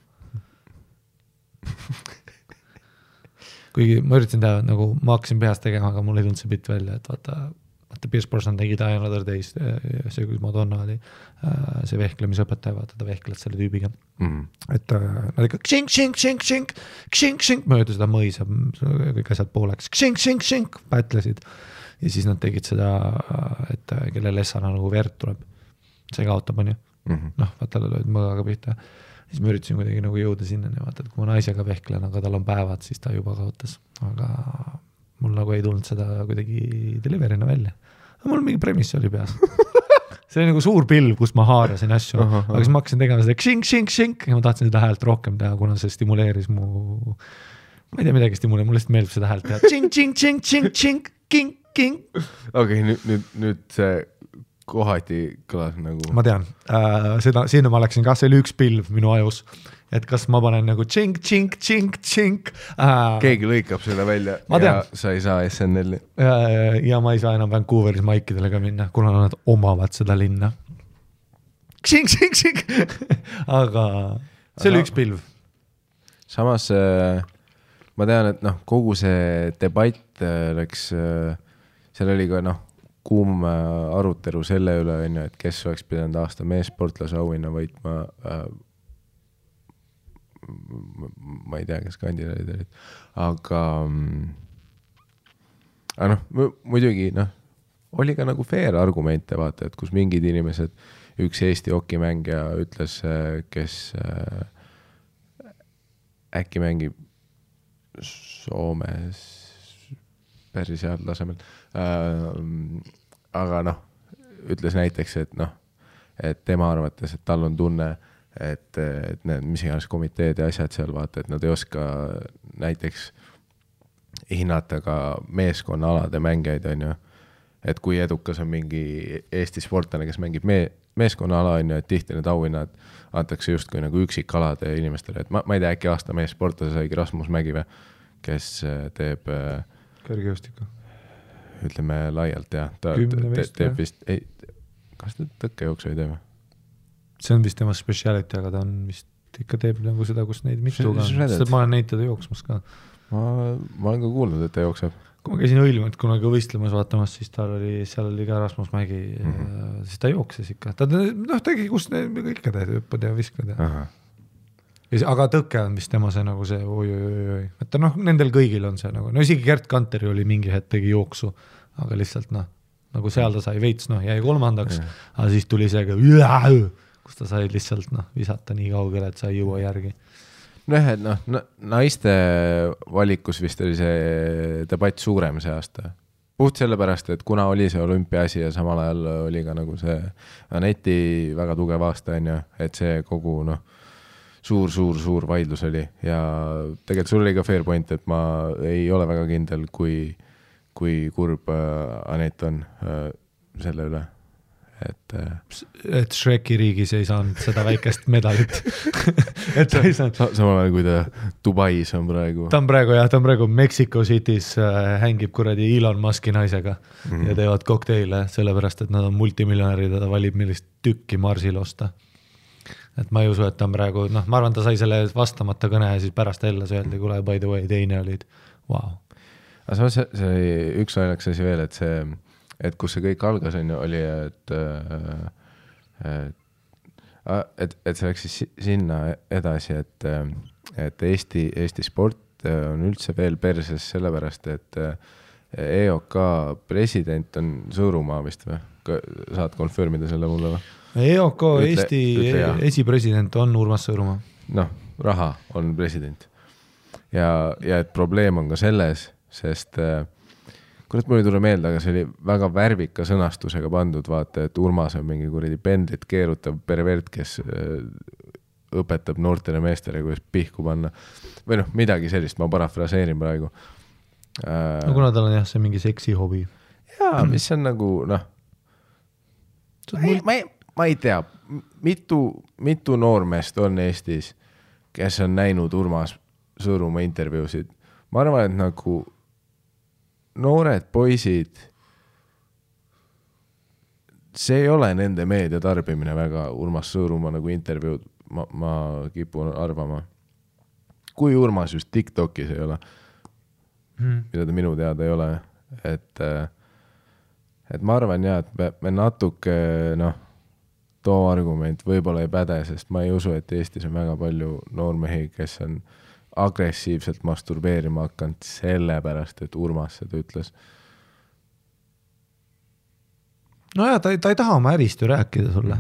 Kuigi ma üritasin teha, nagu ma hakkasin peast tegema, aga mul ei tulnud see bitt välja, et vaata Pierce Brosnan tegi ta ja Another Days, see kui Madonna oli, see vehklemisõpetaja, vaata ta vehkled selle tüübiga. Et nad ikka ksink, ksink, ksink, ksink, ksink, ksink, mööda seda mõisa, kõik asjad pooleks, ksink, ksink, ksink, pätlesid. Ja siis nad tegid seda, et kelle lessana nagu verd tuleb. See kaotab, on ju. Vaata, lööd mõgaga pihta. Siis ma üritasin kuidagi nagu jõuda sinna, vaata, et kui ma naisega vehklen, aga tal on päevad, siis ta juba kaotas. Aga mul nagu ei tulnud seda kuidagi deliverina välja. Mul mingi premis oli peas. See oli nagu suur pilv, kus ma haarasin asju. Aga siis ma hakkasin tegema seda ksink, ksink, ksink ja ma tahtsin seda häält rohkem teha, kuna see stimuleeris mu... Ma ei tea midagi stimuleeris, mulle lihtsalt meeldib seda häält teha. Tsink, tsink, tsink, tsink, tsink, kink, kink. Okei, nüüd see kohati kõlas nagu... Ma tean, sinna ma läksin ka, see oli üks pilv minu ajus. Et kas ma panen nagu tšink, tšink, tšink, tšink. Keegi lõikab selle välja ja sa ei saa SNL-i. Ja ma ei saa enam Vancouveris maikidele ka minna, kuna nad omavad seda linna. Tšink, tšink, tšink. Aga see oli üks pilv. Samas ma tean, et kogu see debatt läks, seal oli ka kuum arutelu selle üle, et kes oleks pidanud aasta meessportlase auhinna võitma ma ei tea, kes kandidaadid olid, aga muidugi oli ka nagu fair argumente vaata, et kus mingid inimesed, üks Eesti hokimängija ütles, kes äkki mängib Soomes päris head tasemel, aga ütles näiteks, et tema arvates, et tal on tunne, et need mis iganes komiteed ja asjad seal vaata, et nad ei oska näiteks hinnata ka meeskonnaalade mängijaid, on ju. Et kui edukas on mingi Eesti sportlane, kes mängib meeskonnaala, on ju, et tihti need auhinnad antakse justkui nagu üksikalade inimestele. Et ma ei tea, äkki aasta meessportlase saigi Rasmus Mägive, kes teeb kõrgjõustikku. Ütleme laialt, jah. Ta teeb vist, kas ta tõkkejooksu ei teeme? See on vist tema speciality, aga ta on vist ikka teeb nagu seda, kus neid mitu ka. Sest ma olen neid teda jooksmas ka. Ma olen ka kuulnud, et ta jookseb. kui ma käisin Õilmet kunagi võistlemas vaatamas, siis seal oli ka Rasmus Mägi, siis ta jookses ikka. Ta tegi, kus ikka teed, hüppad ja viskad. Aga tõke on vist tema see nagu see oi. Et nendel kõigil on see nagu, isegi Gert Kanteri oli mingi hetk tegi jooksu, aga lihtsalt nagu seal ta sai veits, jäi 3, aga siis tuli see, kus ta sai lihtsalt visata nii kaugele, et sa ei jõua järgi. Et naiste valikus vist oli see debatt suurem see aasta. Puht sellepärast, et kuna oli see olümpiaasi ja samal ajal oli ka nagu see Aneti väga tugev aasta, et see kogu suur vaidlus oli ja tegelikult sul oli ka fair point, et ma ei ole väga kindel, kui kurb Anet on selle üle. Et Shreki riigis ei saanud seda väikest medalit. Et ta ei saanud. Samal ajal, kui ta Dubais on praegu. Ta on praegu Mexico City's hängib kuradi Elon Muski naisega ja teevad kokteile, sellepärast, et nad on multimiljonärid ja ta valib millist tükki Marsil osta. Et ma ei usu, et ta on praegu, ma arvan, ta sai selle vastamata kõne ja siis pärast jälle öeldi, kule, by the way, teine olid. Wow. Aga see üks ajalaks asi veel, et kus see kõik algas oli, et see läks siis sinna edasi, et Eesti sport on üldse veel perses sellepärast, et EOK president on Sõõrumaa vist või? Saad konfirmida selle mulle või? EOK Eesti esipresident on Urmas Sõõrumaa. Raha on president. Ja et probleem on ka selles, sest kurat, mul ei tule meelde, aga see oli väga värvika sõnastusega pandud, vaata, et Urmas on mingi kuradi pendlit keerutav pervert, kes õpetab noortele meestele, kuidas pihku panna. Või midagi sellist, ma parafraseerin praegu. Kuna tal on see mingi seksi hobi. Jaa, mis on nagu, ma ei tea, mitu noormeest on Eestis, kes on näinud Urmas Sõõrumaa intervjuusid. Ma arvan, et nagu noored poisid, see ei ole nende meedia tarbimine väga Urmas Sõõrumaa nagu intervjuud, ma kipun arvama. Kui Urmas just TikTokis ei ole, mida ta minu teada ei ole, et ma arvan et me natuke, too argument võib-olla ei päde, sest ma ei usu, et Eestis on väga palju noormehi, kes on agressiivselt masturbeerima hakanud sellepärast, et Urmas seda ütles. Ta ei taha oma ärist ju rääkida sulle.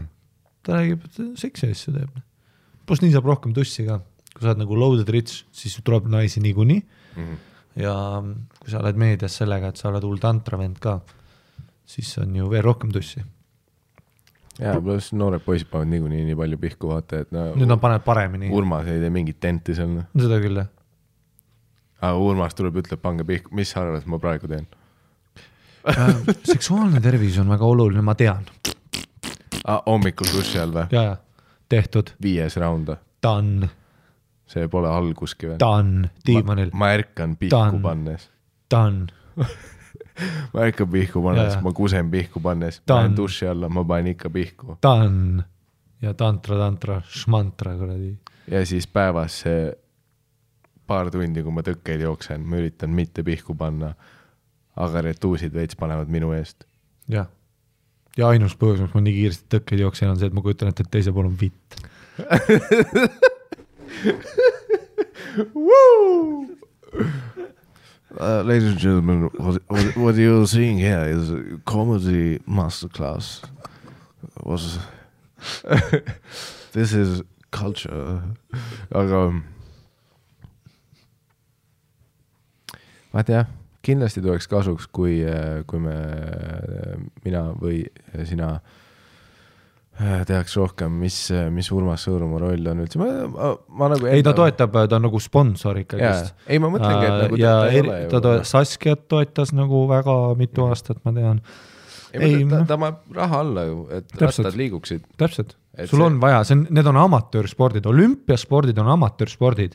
Ta räägib, et seksi asju teeb. Plus nii saab rohkem tussi ka. Kui sa oled nagu loaded rich, siis tuleb naisi niikuinii. Ja kui sa oled meedias sellega, et sa oled hull tantravend ka, siis on ju veel rohkem tussi. Ja, plus noored poisid panevad nii palju pihku vaata, et nüüd nad panevad paremini. Urmas ei tee mingit tenti seal. Seda küll, jah. Aga Urmas tuleb, ütleb, pange pihku. Mis sa arvad, ma praegu teen? Seksuaalne tervis on väga oluline, ma tean. Hommikul duši all või? Ja, tehtud. 5. raunda. Done. See pole alguski või? Done. Tiimanil. Ma ärkan pihku pannes. Done. Ma ärkan pihku pannes, ma kusen pihku pannes. Ma olen duši alla, ma panen ikka pihku. Done. Ja tantra, šmantra. Ja siis päevas see paar tundi, kui ma tõkkeid jooksen, ma üritan mitte pihku panna, aga retuusid veits panevad minu eest. Ja ainus põhjus, mis ma nii kiiresti tõkkeid jooksen, on see, et ma kujutan, et teise pool on vitt. Ladies and gentlemen, what you're seeing here is a comedy masterclass. This is culture. Aga vaat jah, kindlasti tuleks kasuks, kui mina või sina tehaks rohkem, mis Urmas Sõõrumaa roll on üldse. Ma nagu ei, ta toetab, ta on nagu sponsor ikkagist. Ei, ma mõtlengi, et nagu ja ta Saskiat toetas nagu väga mitu aastat, ma tean. Ta ma raha alla ju, et rattad liiguksid. Täpselt. Sul on vaja, need on amatöörspordid, olümpiaspordid on amatöörspordid.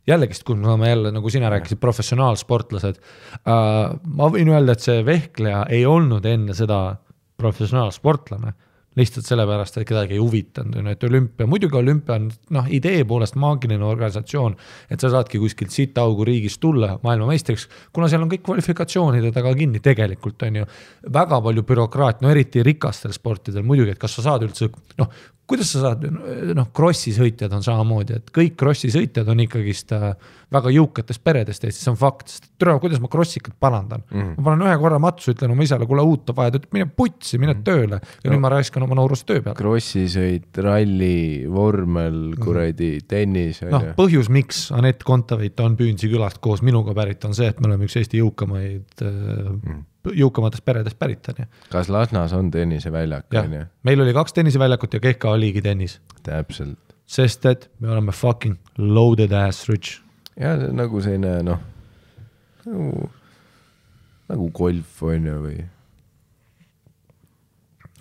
Jällegist, kui me saame jälle, nagu sina rääkisid, professionaalsportlased. Ma võin öelda, et see vehkleja ei olnud enne seda professionaalsportlane. lihtsalt sellepärast, et kedagi ei huvitanud, et olümpia, muidugi olümpia on idee poolest maagiline organisatsioon, et sa saadki kuskilt sitaugu riigist tulla maailmameistriks, kuna seal on kõik kvalifikatsioonide taga kinni, tegelikult on ju väga palju bürokraat, eriti rikastel sportidel muidugi, et kas sa saad üldse, kuidas sa saad, krossi sõitjad on samamoodi, et kõik krossi sõitjad on ikkagist väga jõukatest peredest Eestis, see on fakt, sest kuidas ma krossikat parandan. Ma panen ühe korra matsu, ütlen oma isale, kuule uut on vaja, ta ütleb, mine putsi, mine tööle ja nüüd ma raiskan oma noorust töö peale. Krossisõit, ralli, vormel, kuradi, tennis. Põhjus, miks Anett Kontaveit on Püünsi külast koos minuga pärit, on see, et me oleme üks Eesti jõukamatest peredest pärit. Kas Lasnas on tenniseväljak? Meil oli 2 tenniseväljakut ja Kehka oligi tennis. Täpselt. Sest et me oleme fucking loaded ass rich. Ja see on nagu selline, nagu golf on ju või?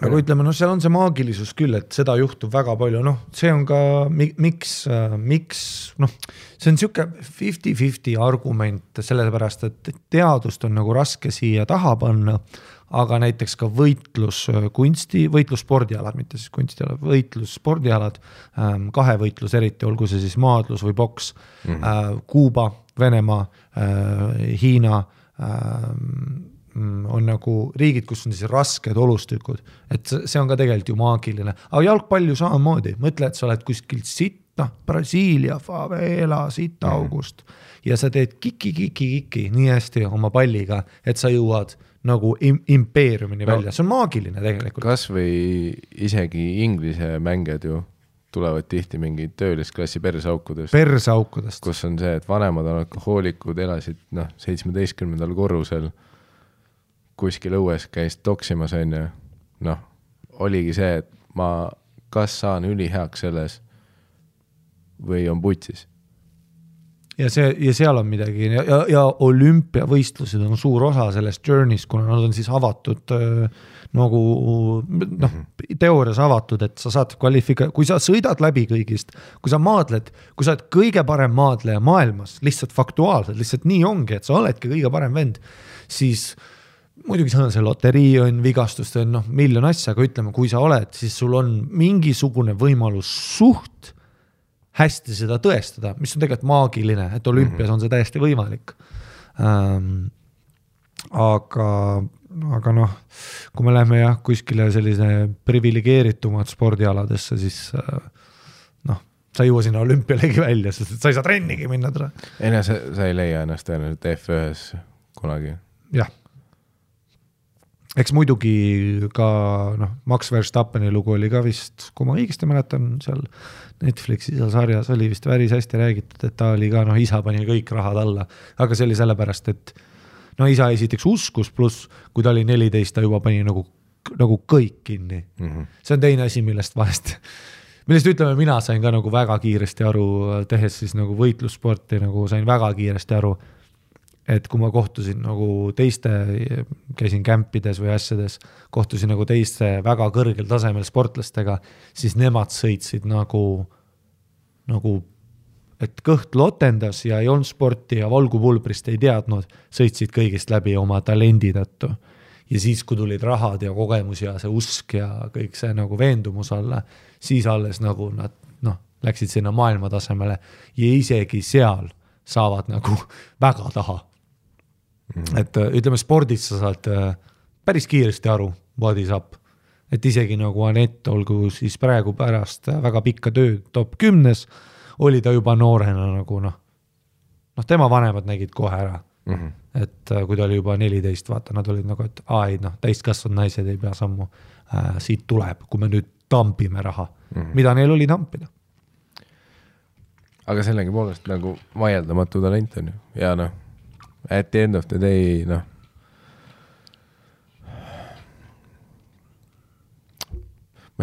Aga ütleme, seal on see maagilisus küll, et seda juhtub väga palju, see on ka, miks, see on siuke 50-50 argument, sellepärast, et teadust on nagu raske siia taha panna, aga näiteks ka võitlusspordialad, mitte siis kunstialad, võitlusspordialad, kahevõitlus eriti, olgu see siis maadlus või boks, Kuuba, Venemaa, Hiina, on nagu riigid, kus on siis rasked olustükud, et see on ka tegelikult ju maagiline, aga jalgpall ju samamoodi, mõtle, et sa oled kuskilt Brasiilia, favela, august ja sa teed kiki nii hästi oma palliga, et sa jõuad nagu impeeriumini välja, see on maagiline tegelikult. Kas või isegi inglise mängijad ju tulevad tihti mingi töölisklassi persaukudest, kus on see, et vanemad on alkohoolikud, elasid 17. korrusel kuskil õues käis toksimas on ja oligi see, et ma kas saan üliheaks selles või on putsis. Ja seal on midagi ja olümpiavõistlused on suur osa sellest journey'st, kuna nad on siis avatud nagu teoorias avatud, et sa saad kui sa sõidad läbi kõigist, kui sa maadled, kui sa oled kõige parem maadleja maailmas, lihtsalt faktuaalselt, lihtsalt nii ongi, et sa oledki kõige parem vend, siis muidugi see loterii on, vigastust on miljon asja, aga ütleme, kui sa oled, siis sul on mingisugune võimalus suht hästi seda tõestada, mis on tegelikult maagiline, et olümpias on see täiesti võimalik. Aga kui me läheme kuskile sellise privilegeeritumad spordialadesse, siis sa ei jõua sinna olümpialegi välja, sest sa ei saa trennigi minna. Sa ei leia ennast tõenäoliselt F1-s kunagi. Jah. Eks muidugi ka Max Verstappeni lugu oli ka vist, kui ma õigesti mäletan, seal Netflixi seal sarjas oli vist päris hästi räägitud, et ta oli ka, isa pani kõik rahad alla, aga see oli sellepärast, et isa esiteks uskus, pluss kui ta oli 14, ta juba pani nagu kõik kinni. See on teine asi, millest ütleme, mina sain ka nagu väga kiiresti aru, tehes siis nagu võitlussporti, nagu sain väga kiiresti aru, et kui ma kohtusin nagu teiste, käisin kämpides või asjades, kohtusin nagu teiste väga kõrgel tasemel sportlastega, siis nemad sõitsid nagu, et kõht lotendas ja ei olnud sporti ja valgupulbrist ei teadnud, sõitsid kõigist läbi oma talendi tõttu. Ja siis, kui tulid rahad ja kogemus ja see usk ja kõik see nagu veendumus alla, siis alles nagu nad läksid sinna maailma tasemele ja isegi seal saavad nagu väga taha. Et ütleme, spordis sa saad päris kiiresti aru, what is up. Et isegi nagu Anett, olgu siis praegu pärast väga pikka tööd top 10, oli ta juba noorena nagu tema vanemad nägid kohe ära. Et kui ta oli juba 14, vaata, nad olid nagu, et täiskasvanud naised ei pea sammu, siit tuleb, kui me nüüd tampime raha, mida neil oli tampida. Aga sellegi poolest nagu vaieldamatu talent on ju, ja at the end of the day, ma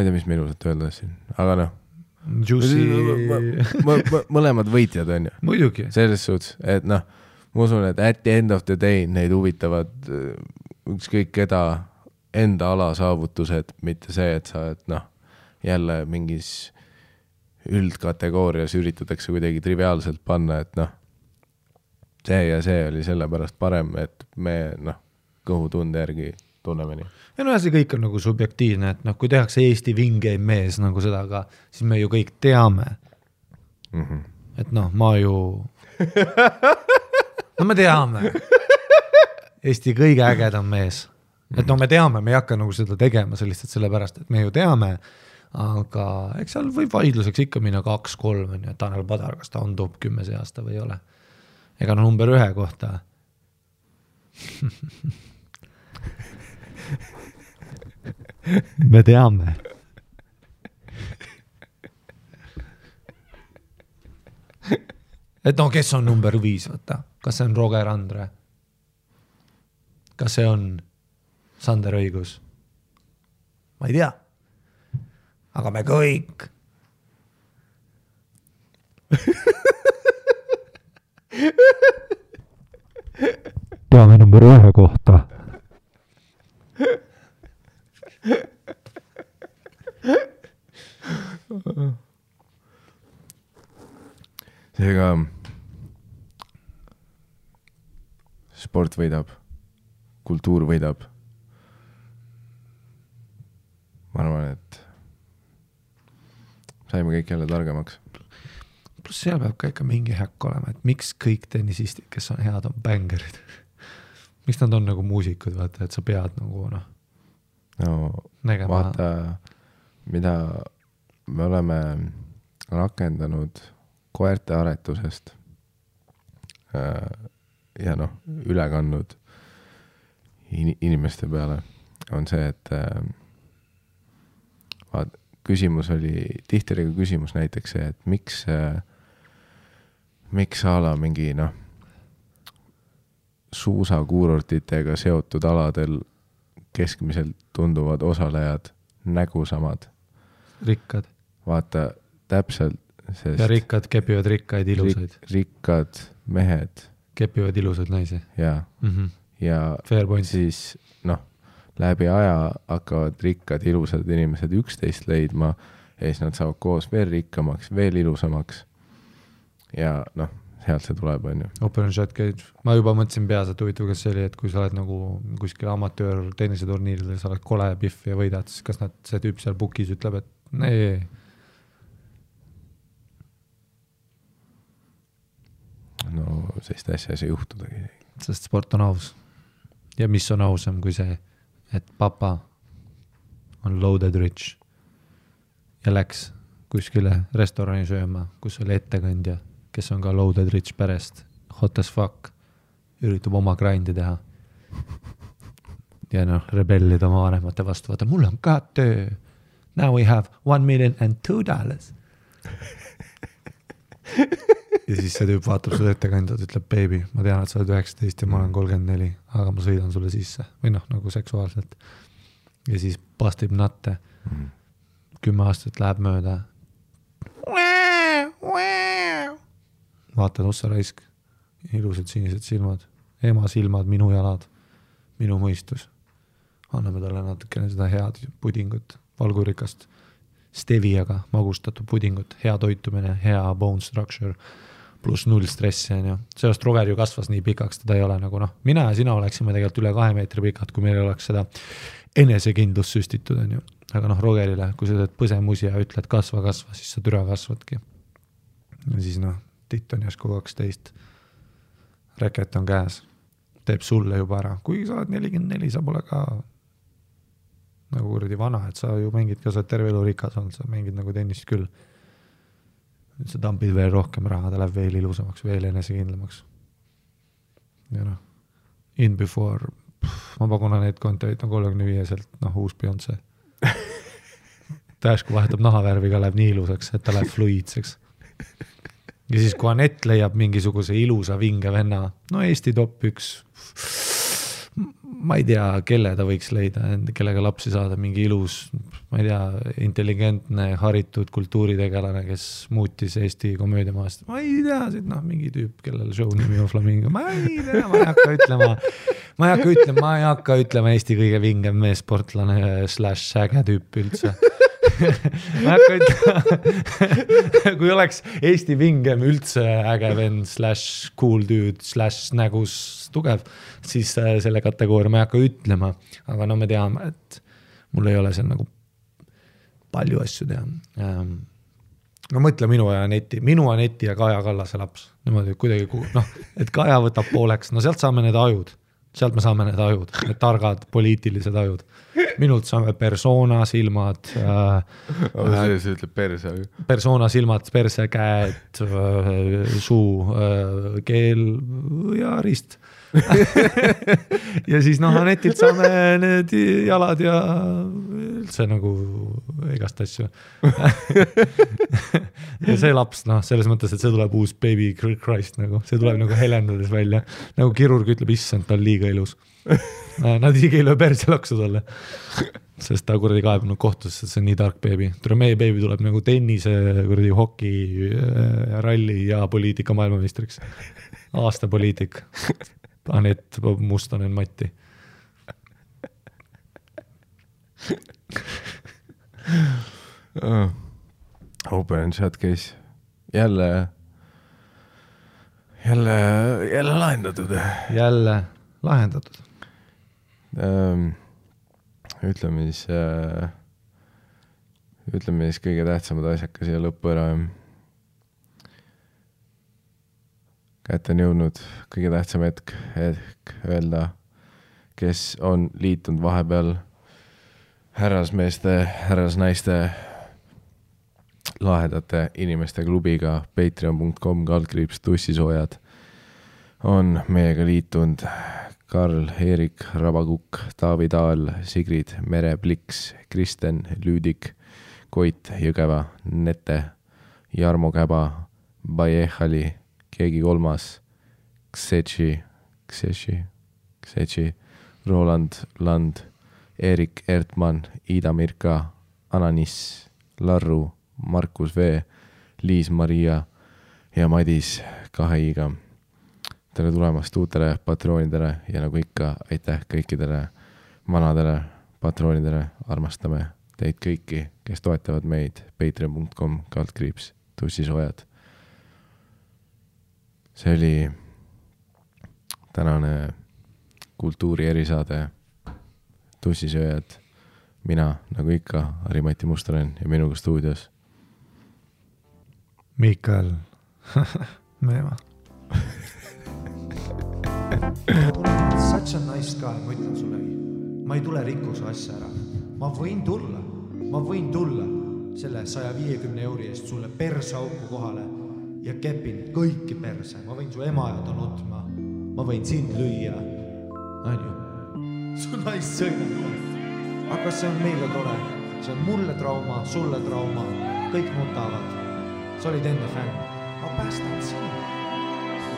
ei tea, mis me ilusat öelda siin, aga mõlemad võitjad on ju. Muidugi. Selles suhtes, et ma usun, et at the end of the day neid huvitavad ükskõik keda enda ala saavutused, mitte see, et sa jälle mingis üldkategoorias üritatakse kuidagi triviaalselt panna, et see ja see oli sellepärast parem, et me kõhutunde järgi tunneme nii. Ja no see kõik on nagu subjektiivne, et noh, kui tehakse Eesti vingeim mees nagu seda ka, siis me ju kõik teame. Et noh, ma ju no me teame Eesti kõige ägedam mees, et no me teame, me ei hakka nagu seda tegema lihtsalt sellepärast, et me ju teame, aga eks seal võib vaidluseks ikka minna 2-3 on ju, Tanel Padar, kas ta on top 10 see aasta või ei ole, ega no number 1 kohta me teame et no kes on number 5, võtta, kas see on Roger Andre, kas see on Sander Õigus, ma ei tea, aga me kõik teame number 1 kohta seega sport võidab, kultuur võidab. Ma arvan, et saime kõik jälle targemaks. Plus seal peab ka ikka mingi häkk olema, et miks kõik tennisistid, kes on head, on bängerid. Miks nad on nagu muusikud, vaata, et sa pead nagu nägema. Vaata, mida me oleme rakendanud koerte aretusest ja noh, üle kandnud inimeste peale on see, et küsimus oli, tihti oli küsimus näiteks see, et miks ala mingi suusakuurortitega seotud aladel keskmiselt tunduvad osalejad nägusamad. Rikkad. Vaata, täpselt. Sest ja rikkad kepivad rikkaid ilusaid. Rikkad mehed. Kepivad ilusaid naisi. Ja, ja siis läbi aja hakkavad rikkad ilusad inimesed üksteist leidma ja siis nad saavad koos veel rikkamaks, veel ilusamaks. Ja sealt see tuleb, on ju. Open shot käid. Ma juba mõtlesin peas, et huvitav, kas see oli, et kui sa oled nagu kuskil amatöör tenniseturniiridel, sa oled kole pihv ja võidad, siis kas see tüüp seal bookis ütleb, et nee. No sellist asja ei saa juhtudagi. Sest sport on aus. Ja mis on ausam kui see, et papa on loaded rich ja läks kuskile restorani sööma, kus oli ettekandja, kes on ka loaded rich perest, hot as fuck, üritab oma grindi teha. Ja rebellid oma vanemate vastu, vaata, mul on ka töö. Now we have $1,002,000. Ja siis see tüüp vaatab sulle ettekandjad, ütleb, baby, ma tean, et sa oled 19 ja ma olen 34, aga ma sõidan sulle sisse. Või nagu seksuaalselt. Ja siis pastib natte. 10 aastat läheb mööda. Vaatad ossa raisk. Ilusad sinised silmad. Ema silmad, minu jalad. Minu mõistus. Anname talle natukene seda head pudingut. Valgurikast steviaga magustatud pudingut. Hea toitumine, hea bone structure. Plus 0 stressi. Sellest Roger ju kasvas nii pikaks, teda ei ole nagu mina ja sina oleksime tegelikult üle 2 meetri pikad, kui meil oleks seda enesekindlust süstitud. Aga Rogerile, kui sa teed põsemusi ja ütled kasva, siis sa türa kasvadki. Ja siis titt on jäsku 12. Reket on käes. Teeb sulle juba ära. Kui sa oled 44, sa pole ka nagu kuradi vana, et sa ju mängid ka, sa terve elu rikas olnud, sa mängid nagu tennist küll. Nüüd sa tampid veel rohkem raha, ta läheb veel ilusamaks, veel enesekindlamaks. Ja in before, ma pakuna need kontoid 35-selt, uus Beyoncé. Ta järsku vahetab nahavärvi ka, läheb nii ilusaks, et ta läheb fluidseks. Ja siis kui Anett leiab mingisuguse ilusa vinge venna, Eesti top 1, ma ei tea, kelle ta võiks leida, kellega lapsi saada, mingi ilus, ma ei tea, intelligentne, haritud kultuuritegelane, kes muutis Eesti komöödiamaast. Ma ei tea, mingi tüüp, kellel show nimi on Flamingo. Ma ei tea, ma ei hakka ütlema Eesti kõige vingem meesportlane / säge tüüp üldse. ma hakka ütlema, kui oleks Eesti vingem üldse äge vend / cool dude / nägus tugev, siis selle kategooria ma ei hakka ütlema, aga no me teame, et mul ei ole seal nagu palju asju teha. No mõtle minu Aneti ja Kaja Kallase laps. Niimoodi kuidagi, et Kaja võtab pooleks, no sealt saame need ajud. Sealt me saame need ajud, need targad poliitilised ajud. Minult saame persona, silmad. See ütleb perse. Persona, silmad, perse, käed, suu, keel ja rist. Ja siis Anetilt saame need jalad ja üldse nagu igast asju. Ja see laps, selles mõttes, et see tuleb uus baby Christ, nagu. See tuleb nagu helendades välja. Nagu kirurg ütleb, issand, ta on liiga ilus. Nad isegi ei löö perse laksu talle. Sest ta kuradi kaebunud kohtusse, see on nii tark baby. Meie baby tuleb nagu tennise, kuradi hoki, ralli ja poliitika maailmameistriks. Aasta poliitik. Anet Mustonen Matti. Open chat case. Jälle lahendatud. Jälle lahendatud. Ütleme siis kõige tähtsamad asjaka siia lõppu ära. Kätte on jõudnud kõige tähtsam hetk öelda, kes on liitunud vahepeal härrasmeeste, härrasnaiste lahedate inimeste klubiga patreon.com/tussisoojad on meiega liitunud Karl-Erik Rabakukk, Taavi Taal, Sigrid Mere-Pliks, Kristen Lüüdik, Koit Jõgeva, Nete, Jarmo Käba, Bajehali, keegi kolmas, Ksetši, Roland Land, Erik Ertmann, Ida Mirka, Ananis, Larru, Markus V, Liis-Maria ja Madis 2 iga. Tere tulemast uutele patroonidele ja nagu ikka, aitäh kõikidele vanadele patroonidele. Armastame teid kõiki, kes toetavad meid patreon.com/tussisoojad. See oli tänane kultuuri erisaade Tussisööjad. Mina, nagu ikka, Harri-Mati Mustonen ja minuga stuudios Mikael Meemaa. Such a nice guy, ma ütlen sulle. Ma ei tule rikkuse asja ära. Ma võin tulla selle 150 euri eest sulle persauku kohale ja kepin kõiki perse. Ma võin su ema ja ta nutma. Ma võin sind lüüa. Anju. Su naist sõidab. Aga see on meile tore. See on mulle trauma, sulle trauma. Kõik nutavad. Sa olid enne fänn. Ma päästan sind.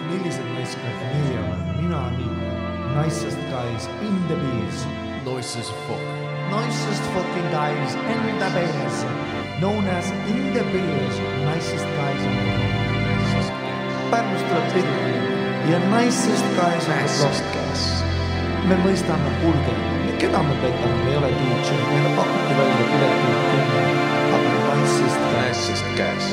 Millised naiskad meie olen? Mina nii. Nicest guys in the bees. Nicest fucking guys in the bees. Known as in the bees. Nicest guys in the bees. Pärnust tuleb tihti. Ja nicest guys on the block. Me mõistame hulge. Keda me petame? Me ei ole DJ. Meile pakuti välja pileti. Aga nicest guys.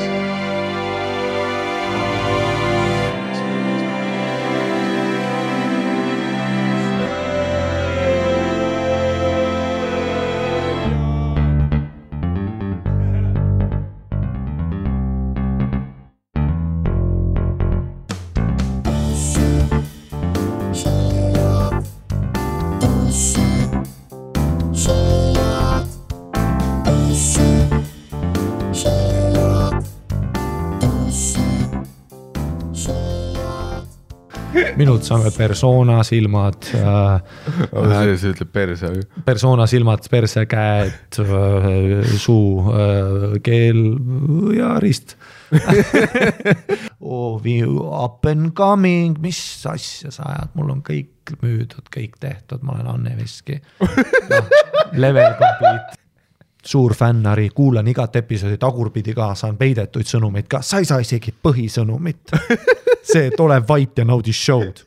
Minult saame persona, silmad, see ütleb perse. Persona, silmad, perse, käed, suu, keel ja rist. Up and coming, mis asja sa ajad? Mul on kõik müüdud, kõik tehtud, ma olen Anne Veski. Level complete. Suur fännari, kuulan igat episoodi tagurpidi ka, saan peidetuid sõnumeid ka. Sa ei saa isegi põhisõnumit. See, et ole vait ja naudi show'd.